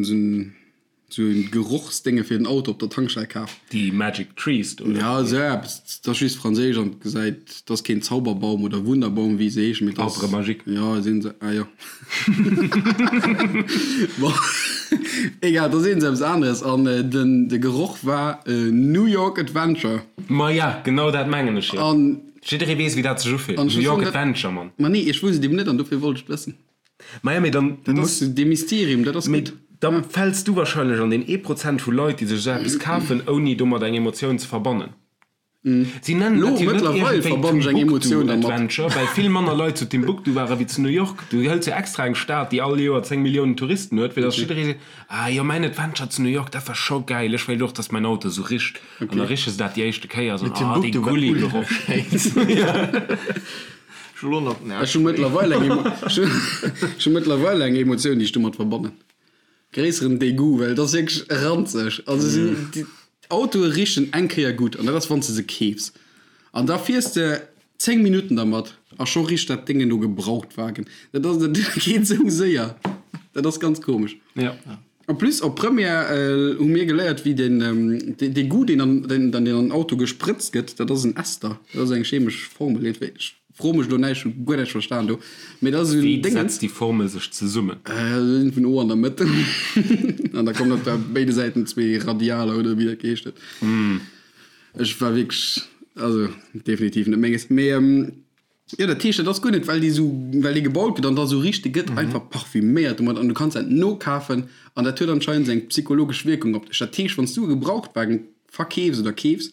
esou en Gerochsdénge fir den Auto op der Tankstell kaf. Déi Magic Trees do, oder? Ja, esou eppes. Dat ass just franséisch an et gesäit, dat ass keen Zauberbaum oder Wunderbaum, wéi se heeschen, mee dat ass. Arbre magique. Ja, sinn se, ah jo. Bon, egal, da sinn se eppes aneres an den de Geroch war New York Adventure. Ma ja, genau dat mengen ech jo. An Jidderee weess, wéi dat sech ufillt. An ech New muss York soen, dat Adventure, Mann. Ma nee, ech wousst et eben net an dofir wollt ech et wëssen. Ma ja, mee dann Dat muss. ass dee Mysterium, dat ass Mee gutt. da fäls du wahrscheinlech an deen ee Prozent vu Leit, déi sech esou eppes kafen, ouni domat eng Emotioun ze verbannen. Si nennen Lo dat jo net mëttlerweil iergendwéi verbannen ech eng Timbuktu Emotioun dermat. Adventure, well vill manner Leit zu Timbuktu ware wéi zu New York. Du hëls jo extra eng Stad, déi all Joer 10 Milliounen Touristen huet, fir datt jidderee seet, Ah jo, mäin Adventure zu New York, dat war scho gäil, ech wéilt och, datt mäin Auto esou richt. An da riche se dat déi éischte Kéier a soen, Ah, dee Timbuktu war Gulli-Geroch. ultra schéin. Ech hu lo nach den Ech hu mëttlerweil eng Emo, ech hu mëttlerweil eng Emotioun, déi ech domat verbannen. Gréisseren Degout, well et ass wierklech ranzeg. Also si déi Autoe richen eng Kéier gutt an dat ass wann s de se keefs. An da fiers de 10 Minutten dermat a scho richt dat Déngen no Gebrauchtwagen. Dat ass, dat geet esou séier. Dat ass ganz komesch. Ja. En plus op Première hu mir geléiert wéi den dee Goût deen an deen an den Auto gesprëtzt gëtt, dat ass en Ester, dat ass eng chemesch Formel. Ech fro mech elo näischt, hu guer näischt verstan do, mee dat ass esou en Wéi Déngens. setzt déi Formel sech zesummen? Vun O an der Mëtt an da kommen op der béide Säiten zwee Radialer oder wéi dat geheescht huet. Ech war wierklech, also definitiv net menges, mee jo dat heescht dat ass guer net well déi esou, well dee gebaut gëtt an da esou richt, dee gëtt einfach parfüméiert domat an du kanns dat nokafen an dat huet anscheinend eng psychologesch Wierkung op dech. Dat heescht wann s du e Gebrauchtwagen verkeefs oder keefs,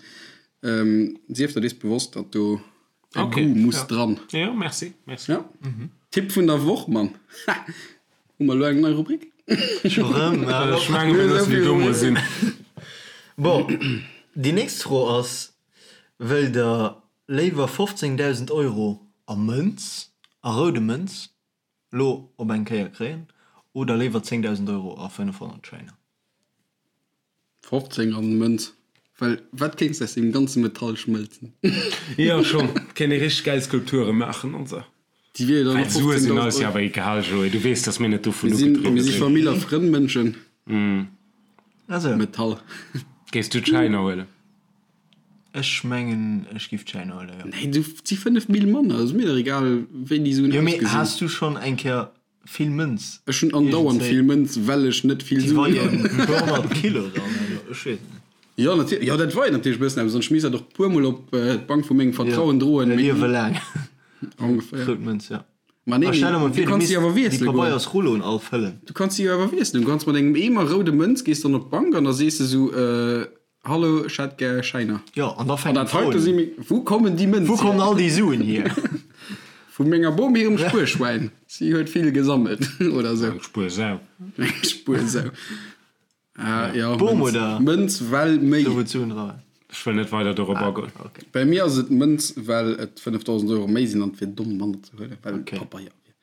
sief der dees bewosst, datt do E Okay, Goût muss ja. dran. Jo, merci, merci. Ja. Tipp vun der Woch, Mann. Ha! Hu mer elo eng nei Rubrik? Scho rëm? Ech menge mir loossen déi do mol sinn. Bon, déi nächst Fro ass, Wëllt der léiwer 15.000 Euro a Mënz, a roude Mënz, lo op eng Kéier kréien oder léiwer 10.000 Euro a 500 Schäiner? 15 an Mënz, well wat kéints de aus deem ganze Metall schmëlzen? Jo schon, kéint ee richteg gäil Skulpture maachen an sou. Déi wier jo dann Well och Sue sinn 15.000 eis jo Euro. awer egal, Joé, du weess, dass mir net dovun Mir sinn, ugedriwwe mir si sinn. Famill a Frënn Mënschen. Also. Metall. Géifs du d'Schäiner huelen? Ech mengen ech giff d'Schäiner huelen, jo. Nee, du, et si 5 Mille manner, ass mir dach egal wéi déi Suen Jo mee ausgesinn. has du schonn eng Kéier Vill Mënz. Ech hunn andauernd vill Mënz, well ech net vill Déi Suen weien hunn. e puer 100 Kilo dann, also ech weess et net. Jo, natierlech. Jo, dat weit natierlech e bëssen eppes an ech misst dat och e puer Mol op d'Bank vu mengem Vertrauen droen. E Liewe laang. Ongeféier. Rout Mënz, ja. Ma nee, A stell der mol du vir, du kanns misst déi awer déi wiessele goen. Pabeiersrulloen all fëllen. Du kanns déi jo awer wiesselen. Du kanns mat engem Eemer roude Mënz gees dann op d'Bank an da sees de sou, Hallo, ech hätt gär Schäiner. Jo, an da An fänken dat d'Froen heite un. si meng. Wou kommen déi Mënz Wou kommen hier? all déi Suen hier? Vu menger Bom hirem Spuerschwäin. Si huet vill gesammelt, oder sou. Eng Spuersau. Eng Spuersau. Ah, ja, Bom Mënz. oder? Mënz, well méi. Do wou d'Suen dra waren. Ech wëll net weider dorop agoen. Okay. Bei mir ass et Mënz, well et 5.000 Euro méi sinn an et wier domm, manner ze huelen, well Okay. Pabeier wier.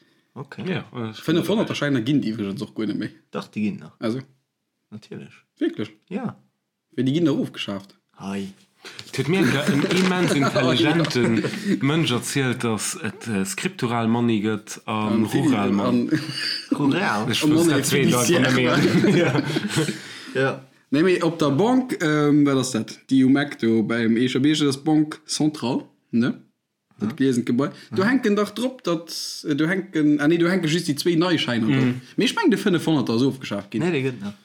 Okay. Ja, ech 500er Schäiner ginn et iwwregens och guer net méi. Dach, déi ginn nach. Also, Natierlech. wierklech? Ja. Wéi, déi ginn dach ofgeschaaft. Hei. Et huet mir eng Kéier en immens intelligente Mënsch erzielt, datt et Scriptural Money gëtt a Rural Money. Rural? Ech wosst dat zweet einfach net méi. Ja. Nee, mee op der Banque, wat ass dat, déi um Eck do beim Eecher Bierg, dat ass d'Banque Centrale, ne? Dat gliesent Gebai. Do hänken dach drop, datt, do hänken, ah nee, do hänke just déi zwéi nei Schäiner drop. Mee ech mengen, de 500er ass ofgeschaaft ginn. Nee, dee gëtt nach.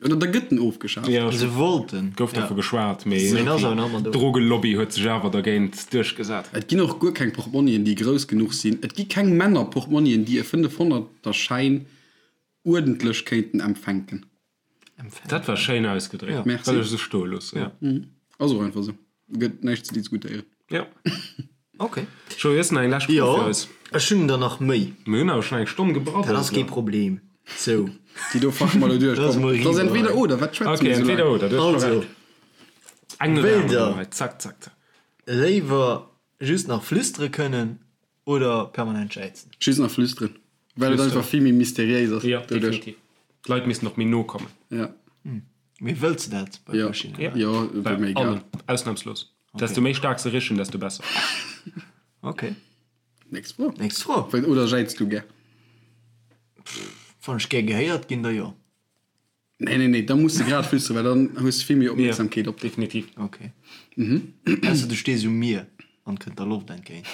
Oder da gëtt en ofgeschaaft. Ja, Se wollten. gouf dervu geschwat, mee Mee en ass awer nach ëmmer do. d'Drogelobby huet sech awer dergéint duerchgesat. Et ginn och guer keng Portmonnien, déi grouss genuch sinn. Et gi keng Männer-Portmonnien, déi e 500er Schäin uerdentlech kéinten empfänken. Dat war schéin ausgedréckt. Merci. Wëll ech esou stoe loossen. Ja. Ass och einfach esou. Gëtt näischt ze diskutéieren. Ja. Ok. Joé, hues de nach eng lescht Fro Jo, fir eis? ech hunn der nach méi. Mir hunn awer schonn eng Stonn gebraddelt. Dat ass kee Problem. Sou. Déi do fache mer elo duerch. Dat ass Komm, mol dat ass eriwwer. entweder oder. Wat schwätze Ok, mir esou entweder laang? oder. Du hues scho Also, Recht. Eng no der wéilt anerer der hei. Zack, zack, zack. léiwer just nach flüstere kënnen oder permanent jäizen? Just nach flüsteren. Well et einfach vill méi mysteriéis ass. Ja, doduerch. definitiv. D'Leit missten och méi no kommen. Ja. Mee wëlls de dat bei Ja. verschiddenen? Ja. Jo, wier Bei mir egal. allen. Ausnahmslos. Desto méi staark se richen, desto besser. Ok. Nächst Fro. Nächst Fro. Well, oder jäiz du gär? Wann ech gär gehéiert ginn, da jo. Nee, nee, nee, da muss de grad flüsteren, well dann hues de vill méi Opmierksamkeet op dech. Definitiv. Ok. Ausser du stees um Mier an kënnt der Loft entgéint.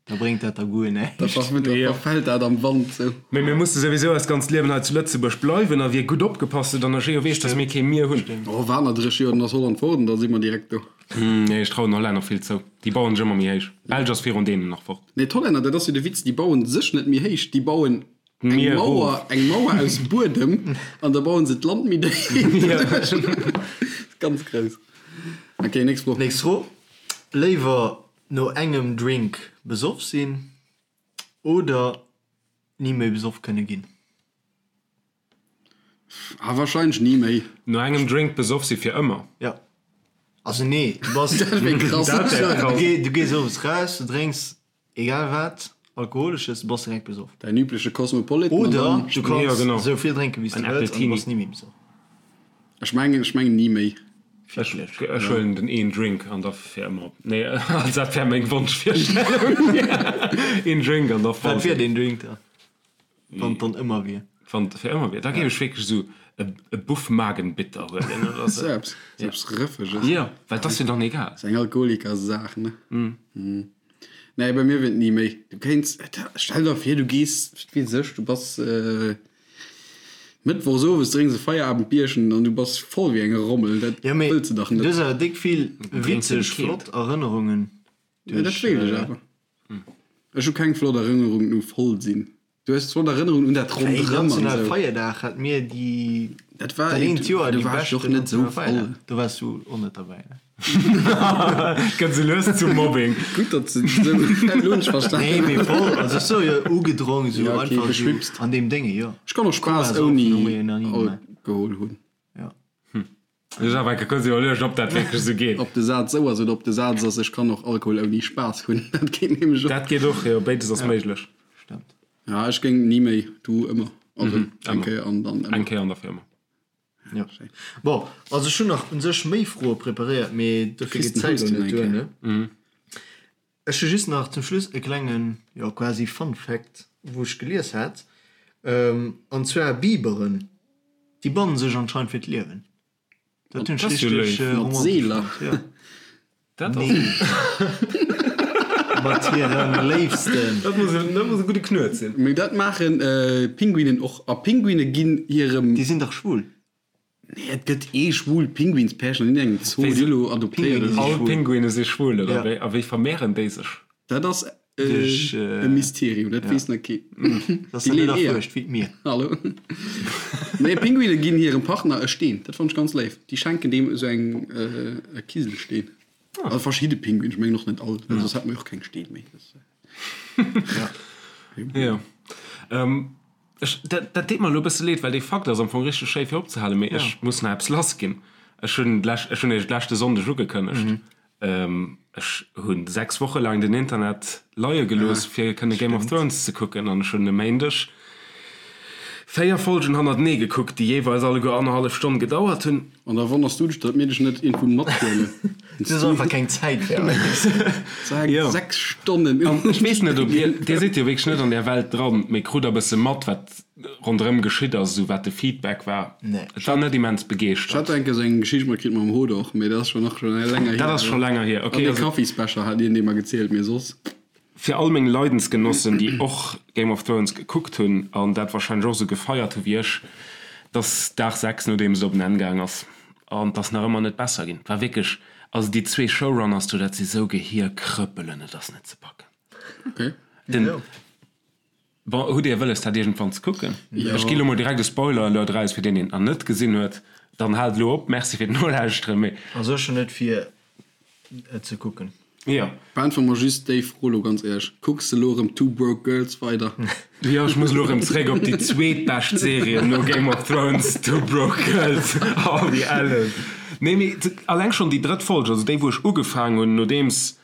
Da bréngt dat der guer näischt. Da verfält dat am Wand sou. Mee mir musse souwisou eist ganzt Liewen hei zu Lëtzebuerg bleiwen a wie gutt opgepasst huet an der Geo weess, dass mir kee Mier hunn. Oh, waart nach 30 Joer, dann ass Holland fort an da si mer direkt do. Nee, ech trauen den Hollänner vill zou. Déi bauen sech ëmmer méi héich. D'Belsch ass virun deenen nach fort. Nee, d'Hollänner, dat ass jo de Witz, déi bauen sech net méi héich, déi bauen eng Mier Mauer, eng Mauer aus Buedem an da bauen se d'Land méi déif. Ganz grouss. Ok, nächst Fro. Nächst Fro, Léiwer no engem Drink besoff sinn oder ni méi besoff kënne ginn? Ah, wahrscheinlech ni méi. No engem Drink besoff si fir ëmmer? Ja. Also nee, du bass, Dat wär krass. Dat wär krass. du gees owes raus, du drénks Egal wat, alkoholesches, du bass direkt besoff. Däin übleche Cosmopolitan an Oder dann. du kanns Ja, genau. esou vill drénken, wéi s du En wëlls, an du Appletini. bass ni méi besoff. Ech mengen, ech mengen ni méi. Ech, ech huelen den een Drink an da fir ëmmer. Nee, also dat wär meng Wonschvirstellung. Een Drink an da voll. Wat wier deen Drink da, wann et dann ëmmer wier? Wann et fir ëmmer wier, da géif ech wierklech esou e Buff Magenbitter huelen oder sou. Sou eppes, sou eppes Rëffeges. Jo, well et ass jo dann egal. Ass eng Alkoholikersaach, ne? Nee, bei mir wier et ni méi. Du kéints, stell der vir, du gees, wat weess ech, du bass Mëttwochs owes, drénks e Feierabendbierchen an du bass voll wéi eng Rommel. Dat Ja, mee wëlls de dach du net. hues awer déck vill Drénks de witzeg, keelt. flott Erënnerungen Ja, dat duerch. wéilt ech awer. Ech hu keng flott Erënnerungen u voll sinn. Du hues flott Erënnerungen un dat Wéi ronderëm an national esou. Feierdag hat mir déi Dat war dat eent Joer do déi war ech och beschten net esou national Feierdag. voll. Do waars du och net derbäi, ne? Gëtt sou lues zum Mobbing. Gutt, datt se esou, elo hunn ech Nee, verstanen. mee voll, also ech so jo ugedronk esou Ja, okay, einfach esou beschwipst. an deem Dénge, jo. Ech kann och Spaass Koma ouni saufen hu mir jo nach ni gemaach. Alkohol hunn. Ja. Ech awer enke kuerz iwwerluecht, ob dat wierklech esou geet. Ob de Saz esou ass oder ob de Saz ass, ech kann och Alkohol ouni Spaass hunn, dat geet nämlech och. Dat geet och, jo, béides ass méiglech. Stemmt. Ja, ech géing ni méi, du ëmmer. Also eng Kéier an dann ëmmer. Eng Kéier an da fir ëmmer. Ja. Bon, also ech hunn nach un sech méi Froe preparéiert, mee dofir geet d'Zäit elo net duer, ne? Ech hu just nach zum Schluss e klengen, jo quasi Fun Fact, wou ech gelies hat, an zwar Biberen, déi bannen sech anscheinend fir d'Liewen. Dat hunn ech Dat ass jo richteg léif. Mat romantesch Seeler. fonnt, jo. Dat ass. Nee. Mat hirem Léifsten. Dat muss e, dat muss e gudde Knuet sinn. Mee dat maachen Pinguinen och. A Pinguine ginn hirem. Déi sinn dach schwul. Nee, et gëtt ee schwul Pinguinspärchen an engem Zoo, déi elo adoptéiert Pinguine oder All sou. Pinguine si schwul, oder Ja. wéi? A wéi vermehren déi sech? Dat ass. Duerch, E Mysterium, dat weess nach keen. Dat ass net erfuerscht, wéi d'Mier. Hallo. Nee, Pinguine ginn hirem Partner e Steen. Dat fannt ech ganz léif. Déi schenken deem esou eng e Kiselsteen. Also verschidde Pinguinen, ech mengen och net all, well soss hätte mer jo och keng Steen méi. Jo. Ech, dat, dat deet mer elo e bësse leed, well dee Fakt ass am Fong richteg schéi fir opzehalen, mee ech muss nach eppes lassginn. Ech hunn d'lescht, ech hunn iech d'leschte Sonndeg ugekënnegt, Ech hu 6 Woche laang den Internet leie gelooss, fir kënne Game of Thrones ze kucken an ech hunn e Méindeg 4 Folgen hannertenee gekuckt, déi jeeweils alleguer annerhallef Stonn gedauert hunn. An da wonners du dech, datt mir dech net iergendwou mathuelen. Du hues einfach keng Zäit fir eis. 6 Stonnen. An ech weess net, ob dir, dir sidd jo wierklech net an där Welt dran, mee krut der e bësse mat, wat ronderëm geschitt ass, esou wat de Feedback war. Nee. Et war net immens begeeschtert. Ech hat enke sou eng Geschicht matkritt mam Hodor, mee dat ass schon nach schon länger hier. Dat ass scho länger hier, okay. An de Kaffisbecher hat hien dee mer gezielt, mee soss. Fir all meng Leidensgenossen, déi och Game of Thrones gekuckt hunn an dat wahrscheinlech och esou gefeiert hu wéi ech, et ass Dag 6 nodeems et op en Enn gaang ass an et ass nach ëmmer net besser ginn. Et war wierklech, also déi zwee Showrunners do, dat si sou Gehierkrëppelen, et ass net ze packen. Okay. Den. Bon, hutt Dir wëlles dat iergendwann ze kucken? Ech gi lo mol direkt e Spoiler Alert eraus fir deen deen et nach net gesinn huet, dann haalt elo op. Merci fir d'Nolauschteren, mee. Also ech hunn net vir et ze kucken. Jo. Beäntwere mer just déi Fro lo ganz éierlech, Kucks de lo erëm Two Broke Girls weider? Jo, ech muss elo erëm zeréck op déi zweetbescht Serie no Game of Thrones, Two Broke Girls. Oh, wéi ellen. Nee, mee alleng schonn déi drëtt Folg, also déi wou ech ugefaang hunn nodeems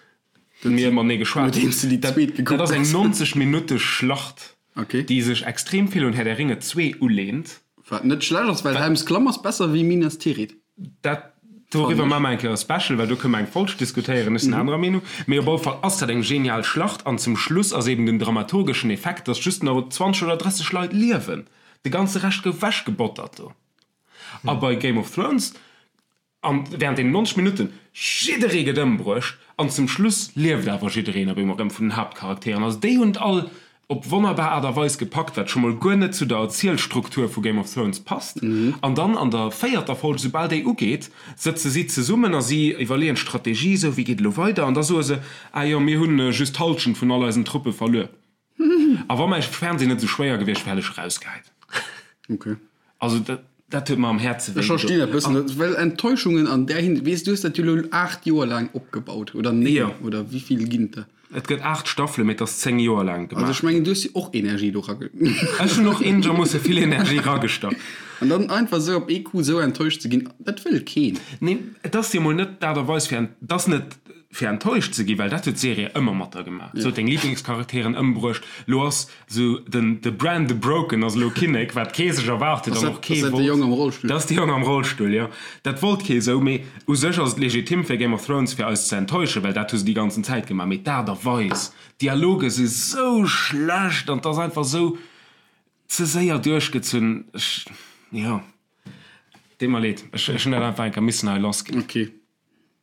mir matenee geschwat hunn. Dat ass eng 90 Minutte Schlacht, déi sech extrem vill un Herr der Ringe 2 ulehnt. Wat net schlecht ass, well Helms Klamm ass besser wéi Minas Tirith. Dat, doriwwer maache mer eng Kéier e Special, well do kënne mer eng Folg diskutéieren. Ech sinn anerer Meenung. Mee op alle Fall ass dat eng genial Schlacht an zum Schluss ass eben den dramaturgeschen Effekt, dass just nach 20 oder 30 Leit liewen. De ganze Rescht gouf wechgebottert do. A bei Game of Thrones An während deenen 90 Minutten, jidderee gëtt ëmbruecht an zum Schluss lieft awer jiddereen op eemol erëm vun den Haaptcharakteren. Also déi hunn et all op wonnerbar Aart a Weis gepackt, wat scho mol guer net zu der Erzielstruktur vu Game of Thrones passt. An dann an der véierter Folg, soubal déi ugeet, sëtze si zesummen a si iwwerleeën d'Strategie, esou wéi geet elo weider? An da soe se, ah jo, mir hunn just d'Hallschent vun all eisen Truppe verluer. A wa mäi Fernseh net esou schwéier gewiescht wär, hätt ech erausgehäit. Okay. Also dat, dat huet mer am Häerze wéi Ech verstinn dat bëssen, dat, well Enttäuschungen an där Hin-, weess, du hues dat jo elo 8 Joer laang opgebaut, oder 9, Jo. oder wéi vill ginn et der? Et gëtt 8 Staffelen, mee et ass 10 Joer laang Also gemaach ech mengen, du hues jo och Energie do rage-. Ech hunn och eenegermoosse vill Energie ragestach. An dann einfach esou op ee Coup esou enttäuscht ze ginn, dat wëll keen. Nee, et ass jo mol net d'Aart a Weis fir en-, et ass net fir enttäuscht ze ginn, well dat huet d'Serie ëmmer mat der gemaach. Se huet deng Liblingscharakteren ëmbruecht. Lo ass sou den de Bran the Broken ass elo Kinnek, wat kee sech erwaart huet an och kee wollt. Ass dat de Jong am Rollstull? Dat ass de Jong am Rollstull, jo. Dat wollt kee sou, mee u sech ass et legitim fir Game of Thrones fir eis ze enttäuschen, well dat hu se déi ganzen Zäit gemaach. Mee d'Aart a Weis, d'Dialoge si sou schlecht an 't ass einfach sou ze séier duerchgezunn. Ech, jo, deet mer leed, ech hunn dat einfach eng Kéier missen hei lassginn. Okay.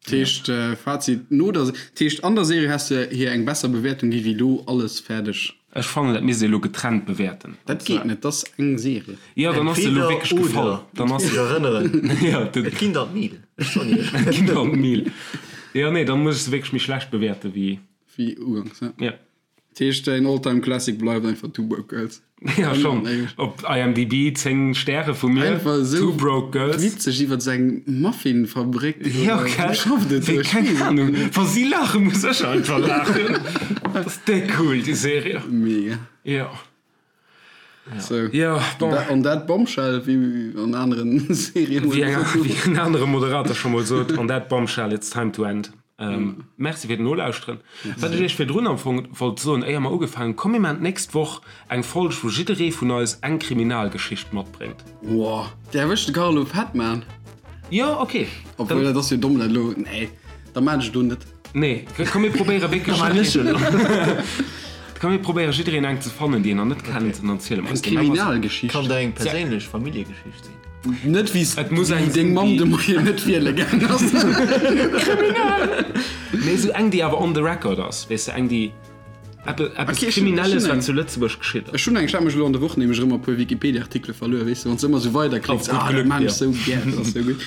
Dat heescht, Fazit, no der, dat heescht an der Serie häss de hir eng besser Bewäertung gi wéi lo alles fäerdeg. Ech fannen dat misst ee lo getrennt bewäerten. Dat geet net, dat ass eng Serie. Jo, dann ass se lo wierklech gefall. Dann ass Ech erënneren, et ginn der d'Mil, ech soen iech. Et ginn der d'Mil. Jo, nee, dann muss ech se wierklech méi schlecht bewäerte wéi. Wéi uganks, ja. Ja. Dat heescht, däin All-Time Classic bleift einfach Two Broke Girls. Ja, schon. Op IMDb 10 Stäre vu mir. Einfach esou Two Broke Girls. Witzeg iwwer seng Muffin-Fabrik. Ja, gell? Schafft et Wéi, keng Ahnung. Wa si laachen, muss ech einfach laachen. Dat ass déck cool, déi Serie. Mega. Ja. So. Ja, bon. On that bombshell, wéi an aneren Serien. Wéi en anere Moderator scho mol sot, on that bombshell, it's time to end. Merci fir d'Nolauschteren. Wat ech iech virdrun am Fong wollt soen, éier mer ugefaangen hunn, Komm mir maachen d'nächst Woch eng Folg, wou jidderee vun eis eng Kriminalgeschicht matbréngt. Woah, där erwëscht de Carlo fett, man. Jo, ok. Obwuel, dat ass jo domm, dat elo. Nee, da maan ech et elo net. Nee, komm mir probéiere wierklech. Da maan ech elo. Komm mir probéiere jiddereen eng ze fannen, déi een nach net kennt, an dann ziele mer Eng eis déi. Kriminalgeschicht. Kann dat eng perséinlech Familljegeschicht sinn? Net wéi Et muss eng deng sinn, Mamm déi. de Moien net wiele gaang ass. Kriminal! Nee, esou eng, déi awer on the record ass, weess de, eng, déi. Eppes Kriminelles, wat zu Lëtzebuerg geschitt ass. Ech hunn eng, ech hat mech elo an der Woch nämlech erëm e puer Wikipedia-Artikele verluer, weess de, wann s de ëmmer esou weiderklicks, ah, dat maan ech sou gär, dat ass sou gutt.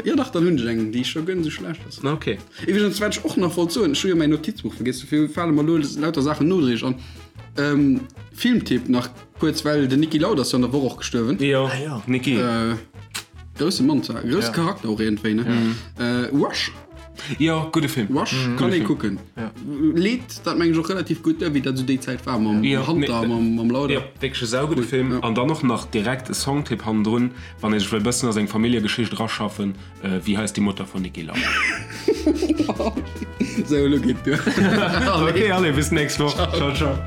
Jo dach, dann hunn ech eng, déi scho guer net esou schlecht ass. Ok. Iwwregens, wat ech och nach wollt soen, ech hu jo mäin Notizbuch vergiess, dofir fale mer elo lauter Saachen nodréiglech an. Filmtipp nach kuerz, well den Niki Lauda ass jo an der Woch och gestuerwen. Jo, Niki. Grousse Mann zwar, grousse Charakter och iergendwéi, ne? Rush. Jo, gudde Film. Rush kann ee kucken. Leet dat meng ech och relativ gutt duer, wéi dat esou déi Zäit war mam Hunter a mam Lauda. Jo, wierklech e saugudde Film. An dann och nach direkt e Songtipp hannendrun, wann ee sech wëll bëssen a seng Familljegeschicht eraschaffen, Wie heißt die Mutter von Niki Lauda? Sou, elo geet duer. Ok, allez, bis nächst Woch. Ciao, ciao.